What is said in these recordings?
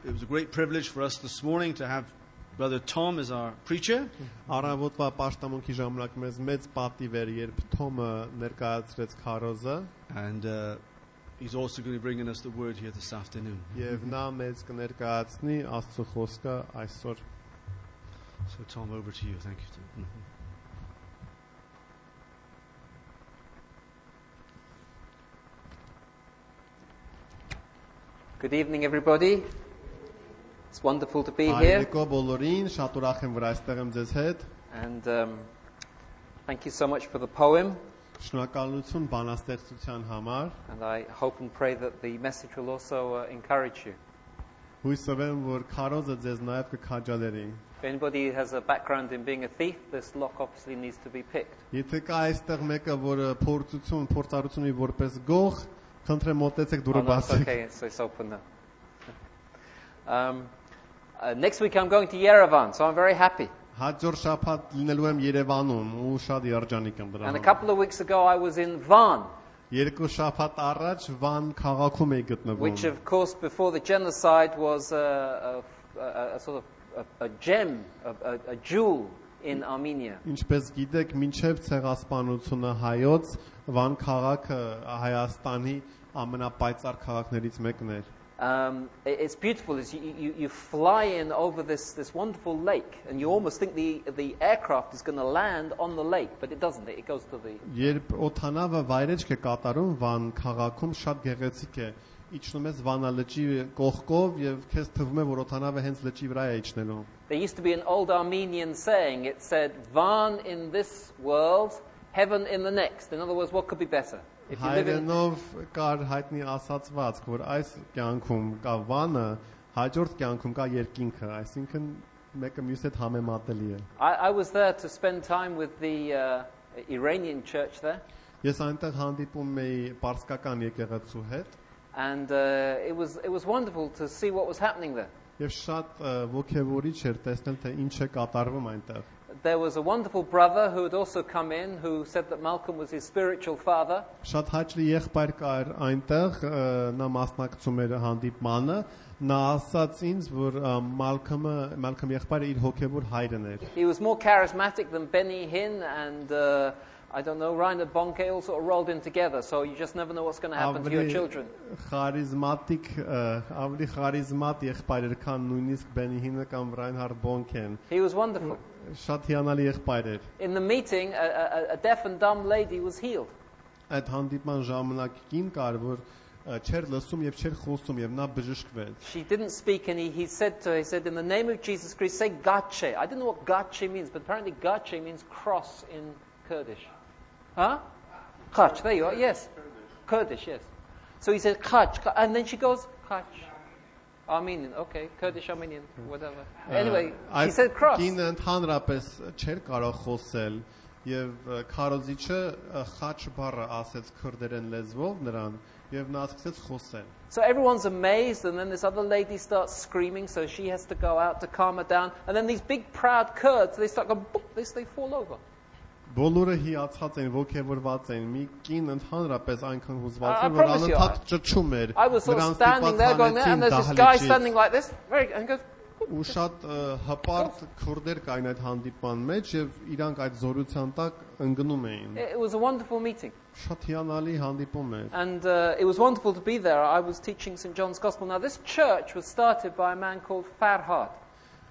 it was a great privilege for us this morning to have Brother Tom as our preacher. Առավոտվա պաշտամունքի ժամանակ մեզ մեծ պատիվ էր, երբ Թոմը ներկայացրեց քարոզը, And he's also going to be bringing us the word here this afternoon. եւ նա մեզ կներկայացնի Աստծո խոսքը այսօր։ So Tom, over to you. Thank you. Tom. Good evening, everybody. It's wonderful to be here. Այրեկո բոլորին, շատ ուրախ եմ, որ այստեղ եմ ձեզ հետ։ And thank you so much for the poem. Շնորհակալություն բանաստեղծության համար։ And I hope and pray that the message will also encourage you. Հույսով եմ, որ քարոզը ձեզ նաև կքաջալերի։ If anybody has a background in being a thief, this lock obviously needs to be picked. Եթե կա այստեղ մեկը, որը փորձառություն ունի որպես գող, խնդրեմ մոտեցեք դուրը Oh, no, it's բացեք։ okay, it's open now. Next week I'm going to Yerevan, so I'm very happy. Հաջորդ շաբաթ լինելու եմ Երևանում ու շատ երջանիկ եմ դրա And a համար։ couple of weeks ago I was in Van, Երկու շաբաթ առաջ Վան քաղաքում էի which գտնվում, of course before the genocide was a sort of a gem, a jewel in Armenia. ինչպես գիտեք, մինչև ցեղասպանությունը հայոց Վան քաղաքը Հայաստանի ամենապայծառ քաղաքներից մեկն էր։ It's beautiful as you fly in over this wonderful lake and you almost think the aircraft is going to land on the lake, but it doesn't. It goes to the... Երբ օթանավը վայրեջք է կատարում Վան քաղաքում, շատ գեղեցիկ է։ Իջնում ես Վանա լճի կողքով եւ քեզ թվում է, որ օթանավը հենց լճի վրա է իջնելու։ There used to be an old Armenian saying. It said, Van in this world, heaven in the next. In other words, what could be better? If you live in... Հայերենով կար հայտնի ասացվածք, որ այս կյանքում կա Վանը, հաջորդ կյանքում կա երկինքը, այսինքն մեկը մյուսի հետ համեմատելի է։ I was there to spend time with the Iranian church there. Ես այնտեղ հանդիպում էի պարսկական եկեղեցու հետ And it was wonderful to see what was happening there. եւ շատ ոգևորիչ էր տեսնել թե ինչ է կատարվում այնտեղ։ There was a wonderful brother who had also come in who said that Malcolm was his spiritual father. Շատ հաճելի եղբայր կար այնտեղ, նա մասնակցում էր հանդիպմանը, նա ասաց ինձ, որ Մալքոմ եղբայրը իր հոգևոր հայրն էր։ He was more charismatic than Benny Hinn and I don't know, Reinhard Bonke all sort of rolled in together, so you just never know what's going to happen to your children. Խարիզմատիկ, ավելի խարիզմատ եղբայր էր, քան նույնիսկ Բենիհինը կամ Ռայնհարդ Բոնքեն։ He was wonderful. Շատ հիանալի եղբայր էր։ In the meeting, a deaf and dumb lady was healed. Այդ հանդիպման ժամանակ կին կար, որ չեր լսում եւ չեր խոսում եւ նա բժշկվեց։ She didn't speak and he said to her, he said, in the name of Jesus Christ, say Gache. I don't know what Gache means, but apparently Gache means cross in Kurdish. Huh? Khach, there you are, yes. Kurdish, yes. So he said Khach, and then she goes, Khach. Armenian, okay, Kurdish, Armenian, whatever. Anyway, she said cross. Կինը ընդհանրապես չէր կարող խոսել եւ քարոզիչը խաչ բառը ասեց քրդերեն լեզվով նրան եւ նա սկսեց խոսել։ So everyone's amazed, and then this other lady starts screaming, so she has to go out to calm her down. And then these big proud Kurds, they start going, boop, they fall over. Բոլորը հիացած են, ոգևորված են։ Մի կին ընդհանրապես այնքան հուզված էր, որ անընդհատ ճչում էր։ I was sort of standing there going there, and there's this guy standing like this, and goes. Ու շատ հպարտ քուրդեր կային այդ հանդիպման մեջ եւ իրանք այդ զորության տակ ընկնում էին։ It was a wonderful meeting. Շատ հիանալի հանդիպում էր։ And it was wonderful to be there. I was teaching St. John's Gospel. Now this church was started by a man called Farhad.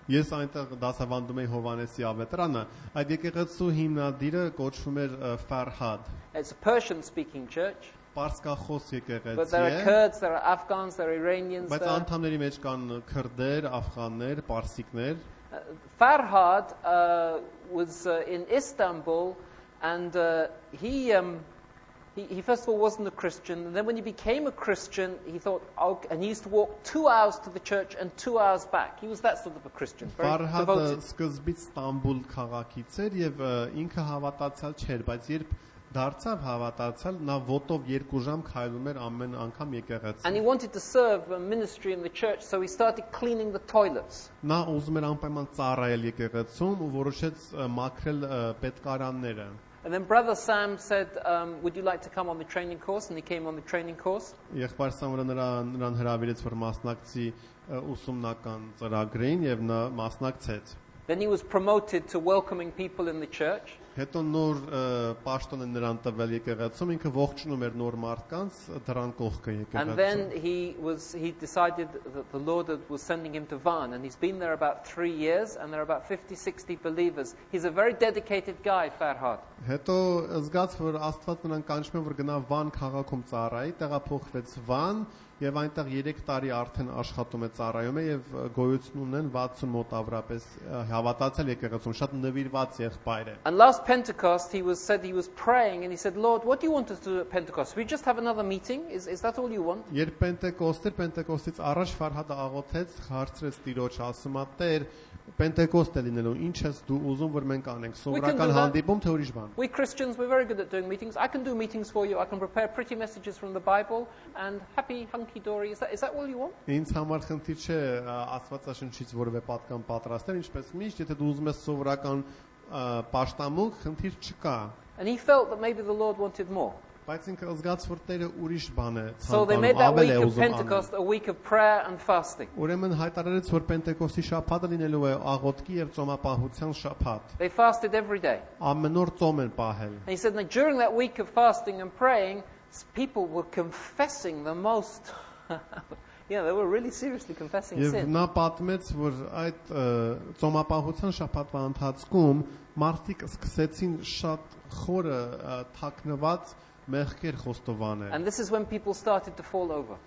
Ես այնտեղ դասավանդում էի Հովանեսի ավետարանը, այդ եկեղեցու հիմնադիրը կոչվում էր Farhad. It's a Persian-speaking church. Պարսկախոս եկեղեցի է։ But there are Kurds, there are Afghans, there are Iranians. Բայց անդամների մեջ կան քրդեր, աֆղաններ, պարսիկներ։ Farhad was in Istanbul, and he first of all wasn't a Christian, and then when he became a Christian, he thought, oh, and he used to walk 2 hours to the church and 2 hours back. He was that sort of a Christian, very devoted. devoted. Սկզբից Ստամբուլ քաղաքից էր եւ ինքը հավատացյալ չէր, բայց երբ դարձավ հավատացյալ, նա ոտով 2 ժամ քայլում էր ամեն անգամ եկեղեցի։ And he wanted to serve a ministry in the church, so he started cleaning the toilets. Նա ուզում էր անպայման ծառայել եկեղեցում ու որոշեց մաքրել պետքարանները։ And then Brother Sam said, would you like to come on the training course? And he came on the training course. Եղբայր Սամվելը նրան հրավիրեց որ մասնակցի ուսումնական ծրագրին եւ նա մասնակցեց։ Then he was promoted to welcoming people in the church. Հետո նոր պաշտոն են նրան տվել եկեղեցում, ինքը ողջունում էր նոր մարդկանց դրան կողքը And եկեղեցում։ then he decided that the Lord was sending him to Van, and he's been there about 3 years, and there are about 50-60 believers. He's a very dedicated guy, Farhad. Հետո զգաց որ Աստված նրան կանչում է որ գնա Վան քաղաքում ծառայի, տեղափոխվեց Վան եւ այնտեղ 3 տարի արդեն աշխատում է ծառայում է եւ գոյություն ունեն 60 մոտ ավրապես հավատացել եկեղեցում, շատ նվիրված եղբայր է։ And last Pentecost he was praying and he said, Lord, what do you want us to do at Pentecost? We just have another meeting? Is that all you want? Երբ Պենտեկոստից առաջ Ֆարհադը աղոթեց, հարցրեց Տիրոջ, ասում է Տեր, Պենտեկոստ է լինելու, ինչ ես դու ուզում որ մենք անենք, սովորական հանդիպում թե ուրիշ բան։ We Christians, we're very good at doing meetings. I can do meetings for you. I can prepare pretty messages from the Bible and happy hunky dory. Is that all you want? Ինձ համար խնդիր չէ Աստվածաշնչից որևէ պատկան պատրաստել, ինչպես միշտ, եթե դու ուզում ես սովորական պաշտամունք, խնդիր չկա։ And he felt that maybe the Lord wanted more. Բայց ինքը զգաց որ Տերը ուրիշ բան է So they made that week of Pentecost a week of prayer and fasting. Ուրեմն հայտարարեց որ Պենտեկոստի շաբաթը լինելու է աղոթքի եւ ծոմապահության շաբաթ։ They fasted every day. Ամեն օր ծոմ են պահել։ And he said that during that week of fasting and praying, people were confessing the most yeah, they were really seriously confessing Եվ sin. նա պատմեց որ այդ ծոմապահության շաբաթվա ընթացքում մարդիկ սկսեցին շատ խորը թաքնված մեղքեր խոստովանել։ And this is when people started to fall over.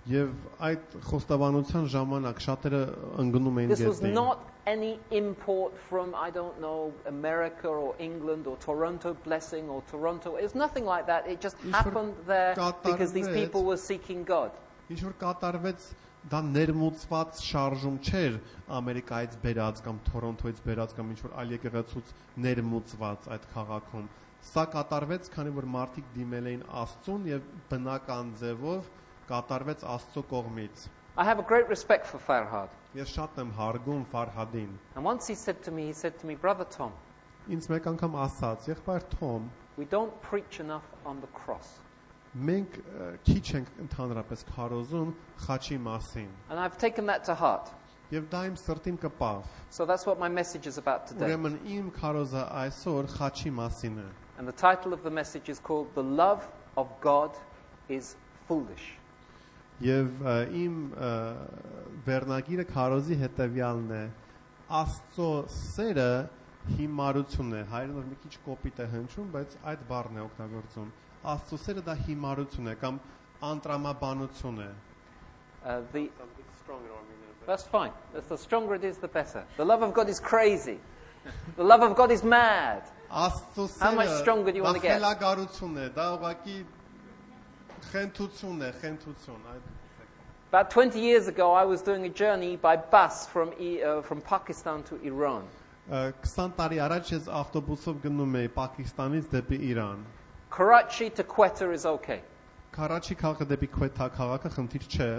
Եվ այդ խոստովանության ժամանակ շատերը ընկնում էին This was գետին։ not any import from, I don't know, America or England or Toronto blessing or Toronto. It was nothing like that. It just happened there because these people were seeking God. Ինչ որ կատարվեց դա ներմուծված շարժում չէր Ամերիկայից բերած կամ Թորոնտոից բերած կամ ինչ որ այլ եկեղեցուց ներմուծված այդ քաղաքում։ Սա կատարվեց, քանի որ մարդիկ դիմել էին Աստծուն եւ բնական ձևով կատարվեց Աստծո կողմից։ I have a great respect for Farhad. Ես շատ եմ հարգում Ֆարհադին։ And once he said to me, Brother Tom, Ինձ մեկ անգամ ասաց, եղբայր Թոմ, we don't preach enough on the cross. մենք քիչ ենք ընդհանրապես քարոզում խաչի մասին։ And I've taken that to heart. Եվ դա իմ սրտին կպավ։ So that's what my message is about today. Ուրեմն իմ քարոզը այսօր խաչի մասին է։ And the title of the message is called The Love of God is Foolish. Եվ իմ վերնագիրը քարոզի հետևյալն է. Աստծո սերը հիմարություն է։ Հայերենով մի քիչ կոպիտ է հնչում, բայց այդ բառն է օգտագործում։ Աստծո սերը դա հիմարություն է կամ անտրամաբանություն է։ That's fine. The stronger it is, the better. The love of God is crazy. The love of God is mad. Աստծո How much stronger do you want to get? Խելագարություն է, դա ուղղակի խենթություն է, խենթություն։ About 20 years ago, I was doing a journey by bus from Pakistan to Iran. 20 տարի առաջ ես ավտոբուսով գնում էի Պակիստանից դեպի Իրան։ Karachi to Quetta is okay. Քարաչի քաղաքը դեպի Քվեթա քաղաքը խնդիր չէ։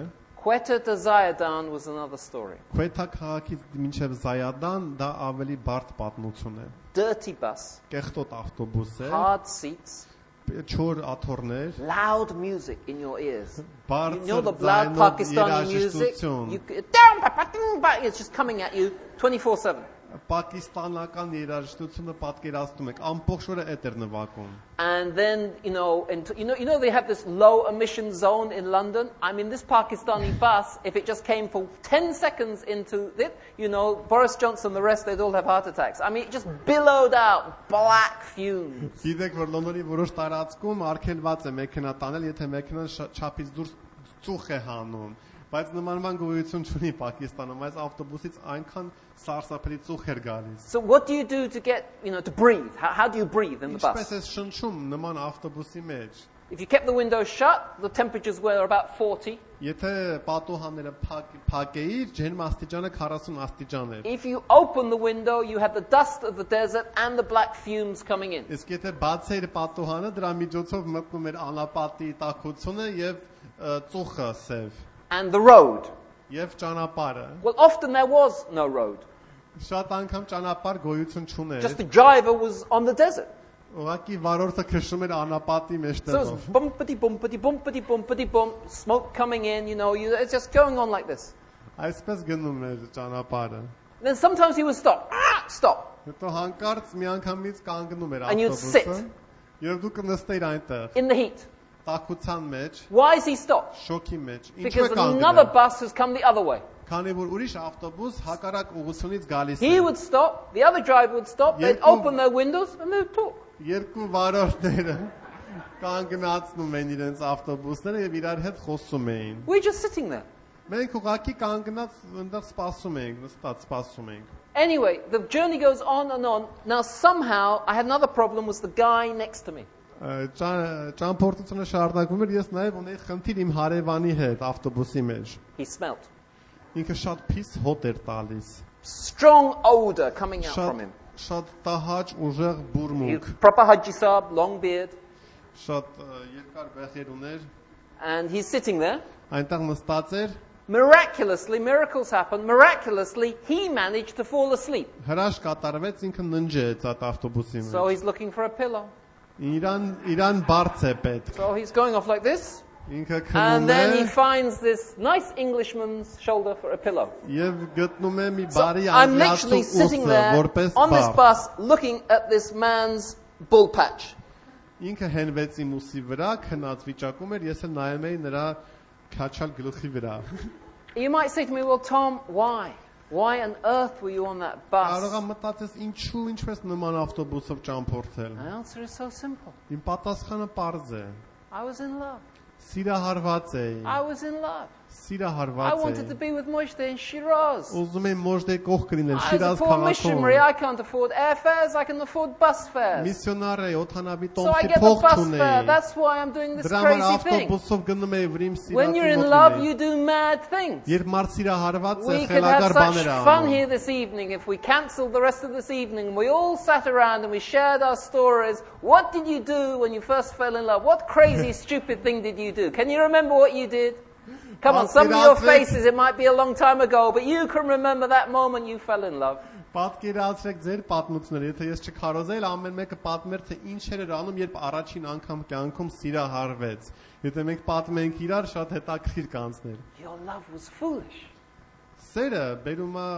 Quetta to Zayadan was another story. Քվեթա քաղաքից մինչև Զայադան դա ավելի բարդ պատմություն է։ Dirty bus. Կեղտոտ ավտոբուս է։ Hard seats. Չոր աթոռներ։ Loud music in your ears. Բարձր You know the loud Pakistani music? It's just coming at you 24/7. Պակիստանական երաժշտությունը պատկերացնում եք ամբողջ օրը էդ էր նվագում։ And then you know they have this low emission zone in London. I mean this Pakistani bus, if it just came for 10 seconds into it, Boris Johnson, the rest, they'd all have heart attacks. I mean it just billowed out black fumes. Գիտեք որ Լոնդոնի որոշ տարածքում արգելված է մեքենա տանել, եթե մեքենան չափից դուրս ծուխ է հանում։ Բայց նմանման գոյություն չունի Պակիստանում, այս ավտոբուսից այնքան սարսափելի ծուխ էր գալիս։ So what do you do to get, to breathe? How do you breathe in the bus? Ինչպես է շնչում նման ավտոբուսի մեջ։ If you kept the windows shut, the temperatures were about 40. Եթե պատուհանները փակեիր, ջերմաստիճանը 40 աստիճան էր։ If you open the window, you had the dust of the desert and the black fumes coming in. Իսկ եթե բացեիր պատուհանը, դրա միջոցով մտնում էր անապատի տաքությունը եւ ծուխը սև։ And the road. Եվ ճանապարհը։ Well, often there was no road. Շատ անգամ ճանապարհ գոյություն չուներ։ Just the driver was on the desert. Ուղղակի վարորդը քշում էր անապատի So մեջտեղով։ it's bumpity, bumpity, bumpity, bumpity, bump, smoke coming in, it's just going on like this. Այսպես գնում էր ճանապարհը։ Then sometimes he would stop. Stop. Հետո հանկարծ մի անգամից կանգնում էր And you'd ավտոբուսը։ sit. Եվ դու կնստեիր այնտեղ, In the heat. տաքության մեջ, Why has he stopped? շոկի մեջ։ Ինչու է Because another կանգնել։ bus has come the other way. Քանի որ ուրիշ ավտոբուս հակառակ ուղղությունից գալիս He է։ would stop, the other driver would stop, they'd Երկու- open their windows and they'd talk. Երկու վարորդները կանգնացնում են իրենց ավտոբուսները եւ իրար հետ խոսում էին։ We're just sitting there. Մենք ուղղակի կանգնած այնտեղ սպասում ենք, նստած սպասում ենք։ Anyway, the journey goes on and on. Now somehow I had another problem was the guy next to me. Ճամփորդությունը շարունակվում էր, ես նաև ունեի խնդիր իմ հարևանի հետ ավտոբուսի մեջ։ He smelt. Ինքը շատ փիս հոտ էր տալիս։ Strong odor coming out from Շատ him. շատ տահաճ ուժեղ He բուրմունք, proper Haji Saab, long beard. շատ երկար բեղեր ուներ։ And he's sitting there. Այնտեղ նստած էր, Miraculously, miracles happen. Miraculously, he managed to fall asleep. հրաշք կատարվեց, ինքը ննջեց այդ ավտոբուսի So մեջ։ he's looking for a pillow. Իրան բարձ է պետք։ So he's going off like this. Ինքը And քնում then he է finds this nice Englishman's shoulder for a pillow. եւ գտնում է մի So բարի I'm անգլիացու literally sitting ուսը, there որպես on this բարձ։ bus looking at this man's bull patch. Ինքը հենվեց իմ ուսի վրա, քնած վիճակում էր, ես էլ նայում էի նրա քաչալ գլխի վրա։ You might say to me, well, Tom, why? Why on earth were you on that Կարող bus? եմ մտածես ինչու ինչպես նման ավտոբուսով ճամփորդել։ The answer is so simple. Իմ պատասխանը պարզ է։ I was in love. Սիրահարված էի։ I was in love. I Սիրահարված wanted to էի։ be with Moshe in Shiraz. Ուզում եմ մոժդե կողք լինել As a Շիրազ poor missionary, քաղաքում։ I can't afford airfares, I can afford bus fares. Միսիոնար է, օթանավի So I տոմսի get the փող bus չունեի։ fare. That's why I'm doing this Դրա համար crazy thing. ավտոբուսով գնում էի, որ իմ When you're in սիրածի love, մոտ you լինեի։ do mad things. Երբ մարդ սիրահարված է, We could have խելագար such բաներ է fun անում։ here this evening if we cancelled the rest of this evening and we all sat around and we shared our stories. What did you do when you first fell in love? What crazy, stupid thing did you do? Can you remember what you did? Come on, some of your faces, it might be a long time ago, but you can remember that moment you fell in love. Պատկերացրեք ձեր պատմությունները, եթե ես չքարոզեի, ամեն մեկը պատմեր թե ինչեր էր անում, երբ առաջին անգամ կյանքում սիրահարվեց։ Եթե մենք պատմենք իրար, շատ հետաքրքիր կանցներ։ Your love was foolish. Սերը բերում է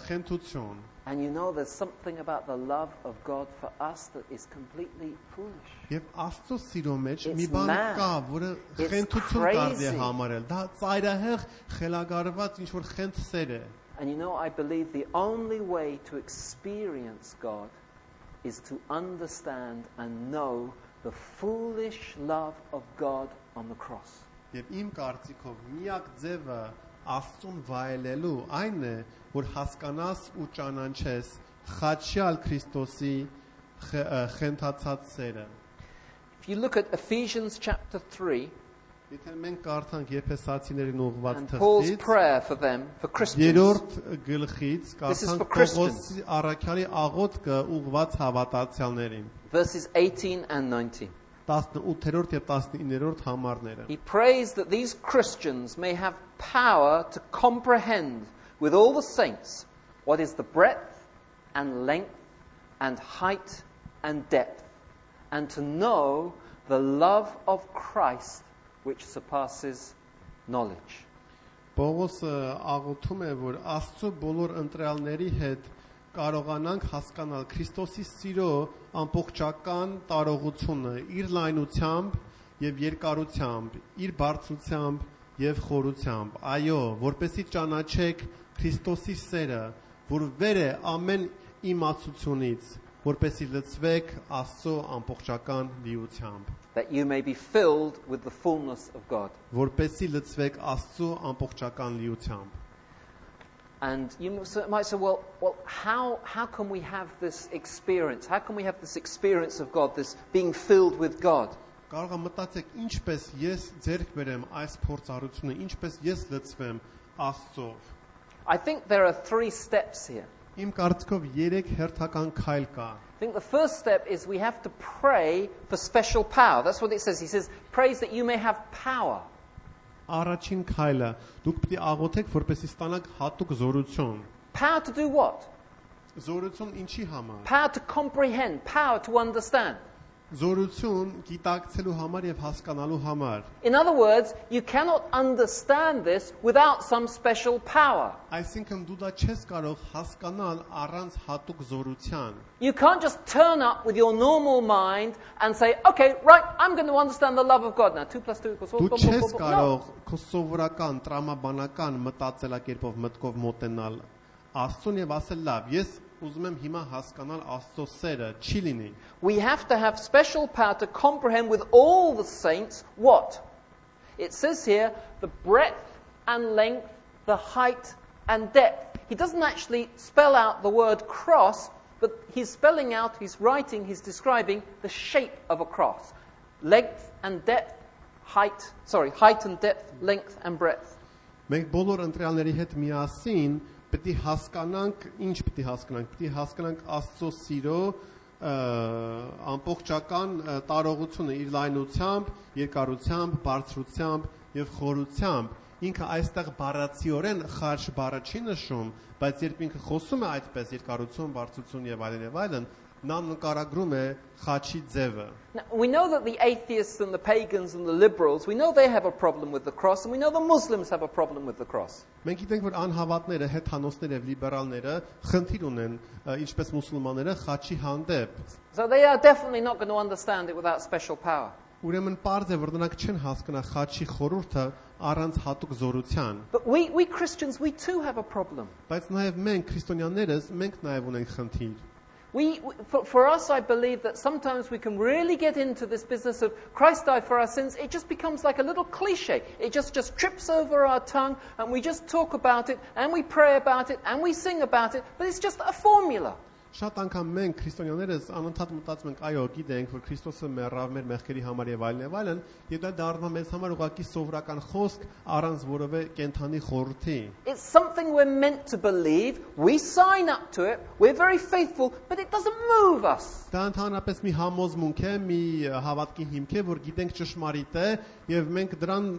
խենթություն։ And you know there's something about the love of God for us that is completely foolish. Եվ Աստծո սիրո մեջ It's մի բան mad. կա, որը It's խենթություն կարելի է crazy. համարել։ Դա ծայրահեղ խելագարված ինչ որ խենթ սեր է։ And you know, I believe the only way to experience God is to understand and know the foolish love of God on the cross. Եվ իմ կարծիքով միակ ձևը Աստծուն վայելելու այն է, որ հասկանաս ու ճանաչես խաչյալ Քրիստոսի խենթացած սերը։ If you look at Ephesians chapter 3 Եթե մենք կարդանք Եփեսացիներին ուղղված and Paul's թղթից, prayer for them, for Christians, երրորդ գլխից This is for կարդանք Christians. Պողոսի առաքյալի աղոթքը ուղղված հավատացյալներին։ verses 18 and 19. 18-րդ եւ 19-րդ համարները։ He prays that these Christians may have power to comprehend with all the saints what is the breadth and length and height and depth, and to know the love of Christ which surpasses knowledge. Պողոսը աղոթում է, որ Աստծո բոլոր ընտրյալների հետ կարողանանք հասկանալ Քրիստոսի սիրո ամբողջական տարողությունը իր լայնությամբ եւ երկարությամբ, իր բարձրությամբ եւ խորությամբ։ Այո, որպեսզի ճանաչեք Քրիստոսի սերը, որ վեր է ամեն իմացությունից, որպեսզի լցվեք Աստծո ամբողջական լիությամբ, That you may be filled with the fullness of God. որպեսզի լցվեք Աստծո ամբողջական լիությամբ։ And you might say, well, how can we have this experience? How can we have this experience of God, this being filled with God? Կարող եմ մտածեք ինչպես ես ձեռք բերեմ այս փորձառությունը, ինչպես ես լցվեմ Աստծով։ I think there are 3 steps here. Իմ կարծիքով 3 հերթական քայլ կա։ I think the first step is we have to pray for special power. That's what it says. He says, praise that you may have power. Առաջին քայլը դուք պետք է աղոթեք, որպեսզի ստանաք հատուկ զորություն։ Power to do what? Զորություն ինչի համար։ Power to comprehend, power to understand. Զորություն գիտակցելու համար եւ հասկանալու համար։ In other words, you cannot understand this without some special power. Այսինքն դու դա չես կարող հասկանալ առանց հատուկ զորության։ You can't just turn up with your normal mind and say, okay, right, I'm going to understand the love of God now. 2 + 2 = 4. Դու չես կարող քո սովորական տրամաբանական մտածելակերպով մտքով մոտենալ Աստծուն եւ ասել լավ, ես ուզում եմ հիմա հասկանալ Աստծո սերը, չի լինի։ We have to have special power to comprehend with all the saints what? It says here, the breadth and length, the height and depth. He doesn't actually spell out the word cross, but he's spelling out, he's writing, he's describing the shape of a cross. Length and depth, height and depth, length and breadth. Մենք բոլոր ընտրյալների հետ միասին պետք է հասկանանք, ինչ պետք է հասկանանք, պետք է հասկանանք Աստծո սիրո ամբողջական տարողությունը իր լայնությամբ, երկարությամբ, բարձրությամբ եւ խորությամբ։ Ինքը այստեղ բառացիորեն խաչ բառը չի նշում, բայց երբ ինքը խոսում է այդպես երկարություն, բարձրություն եւ այլն, նա նկարագրում է խաչի ձևը։ We know that the atheists and the pagans and the liberals, we know they have a problem with the cross, and we know the Muslims have a problem with the cross. Մենք գիտենք, որ անհավատները, հետանոսները եւ լիբերալները խնդիր ունեն, ինչպես մուսուլմանները խաչի հանդեպ։ So they are definitely not going to understand it without special power. Ուրեմն պարզ է, որ նրանք չեն հասկանա խաչի խորհուրդը առանց հատուկ զորության։ But we Christians, we too have a problem. Բայց նաեւ մենք քրիստոնյաներս, մենք նաեւ ունենք խնդիր։ For us, I believe that sometimes we can really get into this business of Christ died for our sins. It just becomes like a little cliche. It just trips over our tongue, and we just talk about it, and we pray about it, and we sing about it, but it's just a formula. Շատ անգամ մենք քրիստոնյաներս անընդհատ մտածում ենք, այո, գիտենք, որ Քրիստոսը մեռավ մեր մեղքերի համար եւ այլն, եւ դա դառնում է մեզ համար ուղղակի սովորական խոսք առանց որևէ կենթանի խորհրդի։ It's something we're meant to believe. We sign up to it. We're very faithful, but it doesn't move us. Դա ընդհանրապես մի համոզմունք է, մի հավատքի հիմք է, որ գիտենք ճշմարիտ է եւ մենք դրան,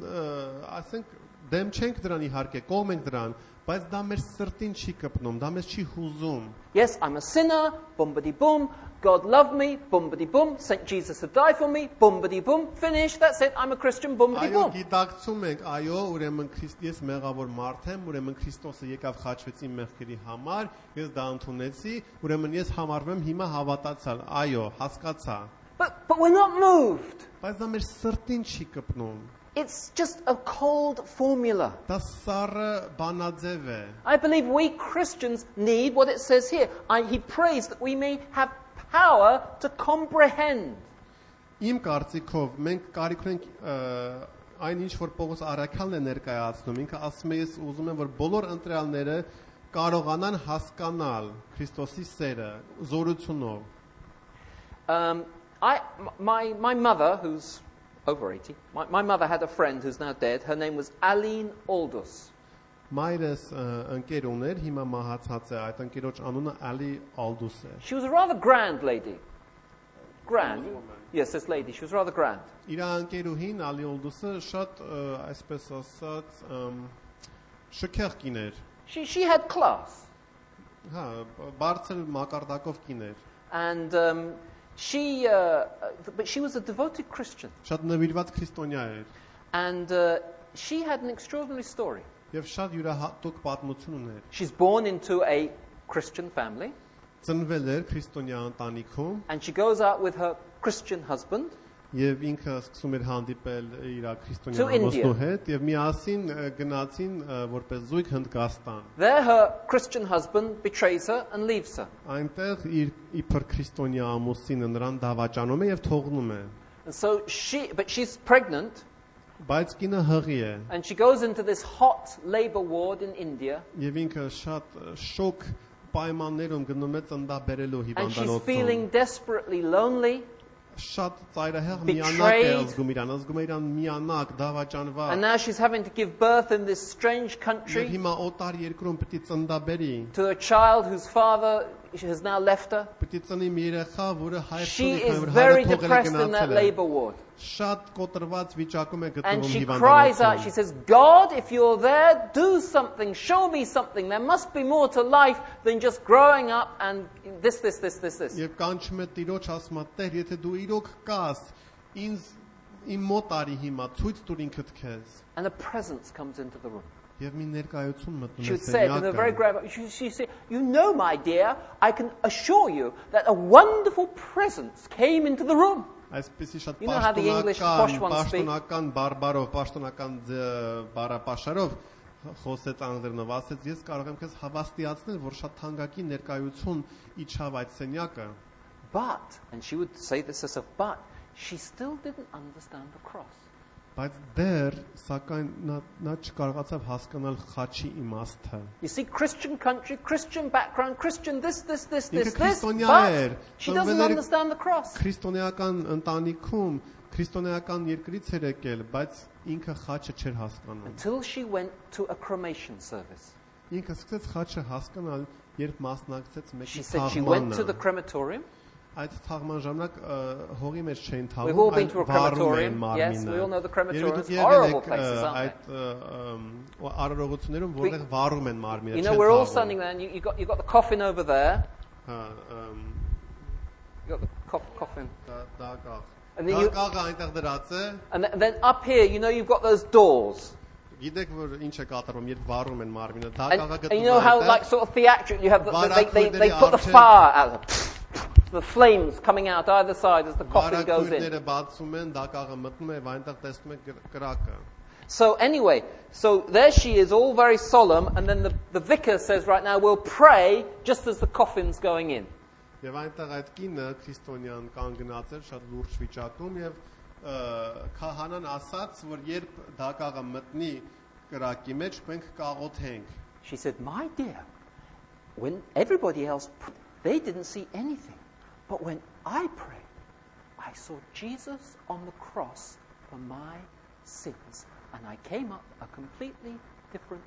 ասենք, դեմ չենք դրան իհարկե, կողմ ենք դրան, բայց դա մեր սրտին չի կպնում, դա մեզ չի հուզում։ Yes, I'm a sinner, boom-bidi boom. God loved me, boom-bidi boom. Saint Jesus had died for me, boom-bidi boom. Finish, that's it, I'm a Christian, boom-bidi boom. Այո, գիտակցում ենք, այո, ուրեմն ես մեղավոր մարդ եմ, ուրեմն Քրիստոսը եկավ խաչվեց իմ մեղքերի համար, ես դա ընդունեցի, ուրեմն ես համարվում եմ հիմա հավատացյալ։ Այո, հասկացա։ But we're not moved. Բայց դա մեր սրտին չի կպնում։ It's just a cold formula. Դա սառը բանաձև է։ I believe we Christians need what it says here. He prays that we may have power to comprehend. Իմ կարծիքով մենք կարիք ունենք այն ինչ որ Պողոս առաքյալն է ներկայացնում, ինքը ասում է, ես ուզում եմ որ բոլոր ընտրյալները կարողանան հասկանալ Քրիստոսի սերը զորությունով։ My mother, who's over 80, my mother had a friend who's now dead. Her name was Aline Aldous. Մայրս ընկեր ուներ, հիմա մահացած է, այդ ընկերոջ անունը Ալի Ալդուս է։ She was a rather grand lady. Grand? Yes, this lady. She was rather grand. Իր ընկերուհին Ալի Ալդուսը շատ այսպես ասած շքեղ կին էր։ She had class. Հա, բարձր մակարդակով կին էր։ And but she was a devoted Christian. Շատ նվիրված քրիստոնյա էր։ And she had an extraordinary story. Եվ շատ յուրահատուկ պատմություն ուներ։ She's born into a Christian family. Ծնվել էր քրիստոնյա ընտանիքում։ And she goes out with her Christian husband. Եվ ինքը սկսում էր հանդիպել իր քրիստոնյա ամուսնու հետ եւ միասին գնացին որպես զույգ Հնդկաստան։ There her Christian husband betrays her and leaves her. Այնտեղ իր իբր քրիստոնյա ամուսինը նրան դավաճանում է եւ թողնում է։ And so she's pregnant. Բայց կինը հղի է։ And she goes into this hot labor ward in India. Եվ ինքը շատ շոկ պայմաններում գնում է ծննդաբերելու հիվանդանոցում։ And she's feeling desperately lonely. Շատ ծայրահեղ միանակ է զգում իրան, զգում է իրան միանակ, դավաճանված։ And now she's having to give birth in this strange country. Եվ հիմա օտար երկրում պետք է ծննդաբերի։ To a child whose father has now left her. Պետք է ծնի մի երեխա, որը հայրը She is very depressed in that labor ward. շատ կոտրված վիճակում է And գտնվում she cries out, she հիվանդանոցում։ says, God, if you're there, do something, show me something. There must be more to life than just growing up and this. Եվ կանչում է Տիրոջ, ասում է. Տեր, եթե դու իրոք կաս, ինձ իմ մոտ արի հիմա, ցույց տուր ինքդ քեզ։ And a presence comes into the room. Եվ մի ներկայություն մտնում She է would say it in a very սենյակը։ grave. She said, "You know, my dear, I can assure you that a wonderful presence came into the room." Այսպեսի շատ You know how the English posh ones speak? պաշտոնական բարբարով, պաշտոնական բառապաշարով խոսեց անգլերենով, ասեց ես կարող եմ քեզ հավաստիացնել, որ շատ թանկագին ներկայություն իջավ այդ սենյակը, But, and she would say this as a but, she still didn't understand the cross. բայց դեռ սակայն նա չկարողացավ հասկանալ խաչի իմաստը։ You see, Christian country, Christian background, Christian this, Ինքը but քրիստոնյա էր, she doesn't ծնվել էր understand the cross. քրիստոնեական ընտանիքում, քրիստոնեական երկրից էր եկել, բայց ինքը խաչը չէր հասկանում։ Until she went to a cremation service. Ինքը սկսեց խաչը հասկանալ, երբ մասնակցեց She մեկի said she went to the թաղմանը։ crematorium. Այդ թաղման ժամանակ հողի մեջ չէին We've all թաղում, been to a crematorium. մարմինը։ Yes, we all know the crematoriums. Երբ Horrible եկել places, եք aren't այդ արարողություններում, որտեղ վառում են մարմինը։ You know, we're all standing there, and you got the coffin over there. You got the coffin. And then you- Դակաղը այնտեղ դրած է։ And then up here, you know, you've got those doors. Gidek որ ինչ է կատարվում, երբ վառում են մարմինը, And, դակաղը and you know how, գտնվում like, է։ sort of theatrical, you have they Վարակույրների put the առջև- fire out, the flames coming out either side as the coffin goes in. Վարակույրները բացում են, դակաղը մտնում է, այնտեղ տեսնում եք կրակը։ So anyway, so there she is, all very solemn, and then the vicar says, right now, we'll pray just as the coffin's going in. Եվ այնտեղ այդ կինը քրիստոնյան կանգնած էր շատ լուրջ վիճակում եւ քահանան ասաց, որ երբ դակաղը մտնի կրակի մեջ, մենք կաղոթենք։ She said, my dear, when everybody else, they didn't see anything. But when I prayed, I saw Jesus on the cross for my sins. And I came up a completely different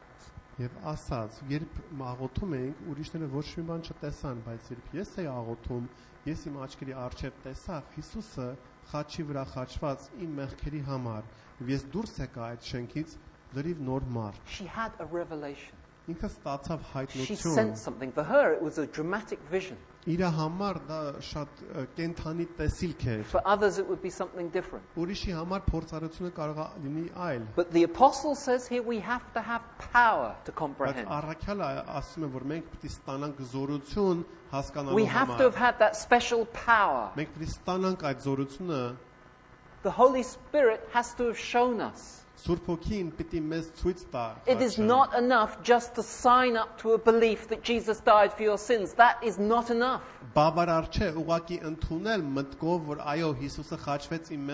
person. Եվ ասաց, երբ աղոթում ենք, ուրիշները ոչ մի բան չտեսան, բայց երբ ես էի աղոթում, ես իմ աչքերի առջև տեսա Հիսուսը խաչի վրա խաչված իմ մեղքերի համար, եւ ես դուրս եկա այդ շենքից լրիվ նոր մարդ։ She had a revelation. Ինքը ստացավ She հայտնություն։ sensed something. For her, it was a dramatic vision. Իր համար դա շատ կենթանի տեսիլք էր։ For others, it would be something different. Ուրիշի համար փորձառությունը կարող է լինի այլ։ But the apostle says here we have to have power to Բայց comprehend. առաքյալը ասում է, որ մենք պետք է ստանանք զորություն We հասկանալու have to have համար։ had that special power. Մենք պետք է ստանանք այդ զորությունը, The Holy Spirit has to have shown us. Սուրբ Հոգին պետք է մեզ ցույց տա։ It is խաչը։ not enough just to sign up to a belief that Jesus died for your sins. That is not enough. Բավարար չէ ուղղակի ընդունել մտքով, որ այո, Հիսուսը խաչվեց իմ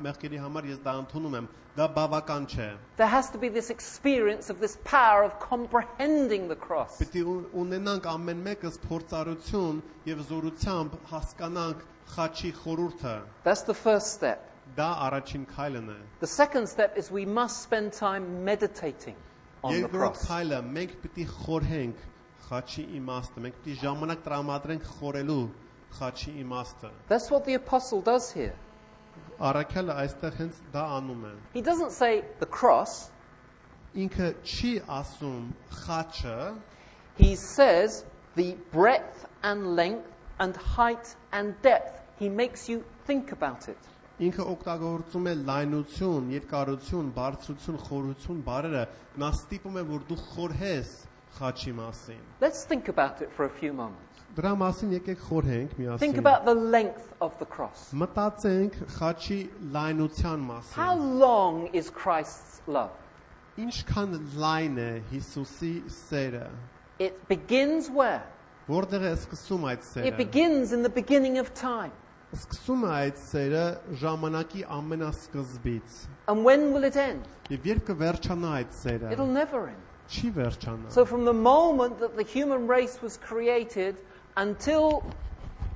մեղքերի համար, ես դա ընդունում եմ։ Դա բավական չէ։ There has to be this experience of this power of comprehending the cross. Պետք է ունենանք ամեն մեկս փորձառություն եւ զորությամբ հասկանանք խաչի խորհուրդը։ That's the first step. Դա առաջին քայլն է։ The second step is we must spend time meditating on the Երկրորդ cross. քայլը մենք պետք է խորհենք խաչի իմաստը, մենք պետք է ժամանակ տրամադրենք խորելու խաչի իմաստը։ That's what the apostle does here. Առաքյալը այստեղ հենց դա անում է։ He doesn't say the cross. Ինքը չի ասում խաչը, He says the breadth and length and height and depth. He makes you think about it. ինքը օգտագործում է լայնություն, երկարություն, բարձրություն, խորություն բառերը, նա ստիպում է, որ դու խորհես խաչի մասին։ Let's think about it for a few moments. Դրա մասին եկեք խորհենք Think միասին։ about the length of the cross. Մտածենք խաչի լայնության How մասին։ long is Christ's love? Ինչքան լայն է Հիսուսի սերը։ It begins where? Որտեղ է սկսում այդ It սերը։ begins in the beginning of time. Սկսում է այդ սերը ժամանակի ամենասկզբից։ And when will it end? Եվ երբ կվերջանա այդ սերը։ It'll never end. Չի վերջանա։ So from the moment that the human race was created until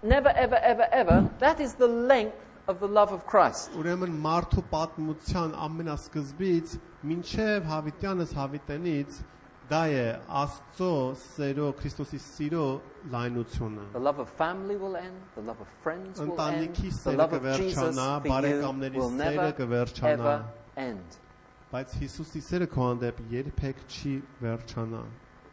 never, ever, ever, ever, that is the length of the love of Christ. Ուրեմն մարդու պատմության ամենասկզբից մինչև հավիտյանս հավիտենից Դա է Աստծո սերո Քրիստոսի սիրո լայնությունը։ The love of family will end. The love of friends will end. Ընտանիքի The սերը love of Jesus կվերջանա, for you բարեկամների will սերը never կվերջանա, ever end. բայց Հիսուսի սերը քո հանդեպ երբեք չի վերջանա։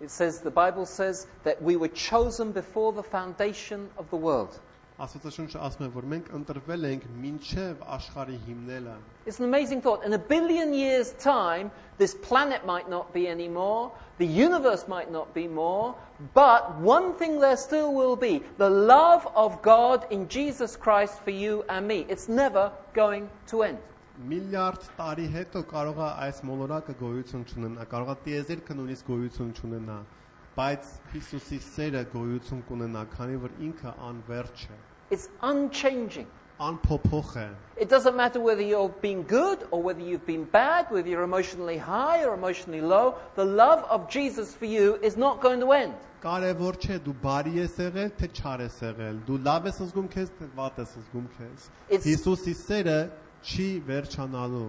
It says, the Bible says that we were chosen before the foundation of the world. Աստվածաշունչը ասում է, որ մենք ընտրվել ենք մինչև աշխարհի հիմնելը։ It's an amazing thought. In 1 billion years' time, this planet might not be anymore, the universe might not be more, but one thing there still will be, the love of God in Jesus Christ for you and me. It's never going to end. Միլիարդ տարի հետո կարող է այս մոլորակը գոյություն չունենա, կարող է տիեզերքը նույնիսկ գոյություն չունենա, բայց Հիսուսի սերը գոյություն կունենա, քանի որ ինքը անվերջ է, It's unchanging. անփոփոխ է։ It doesn't matter whether you've been good or whether you've been bad, whether you're emotionally high or emotionally low. The love of Jesus for you is not going to end. Կարևոր չէ դու բարի ես եղել, թե չար ես եղել, դու լավ ես զգում քեզ, թե վատ ես զգում քեզ։ Հիսուսի սերը չի վերջանալու։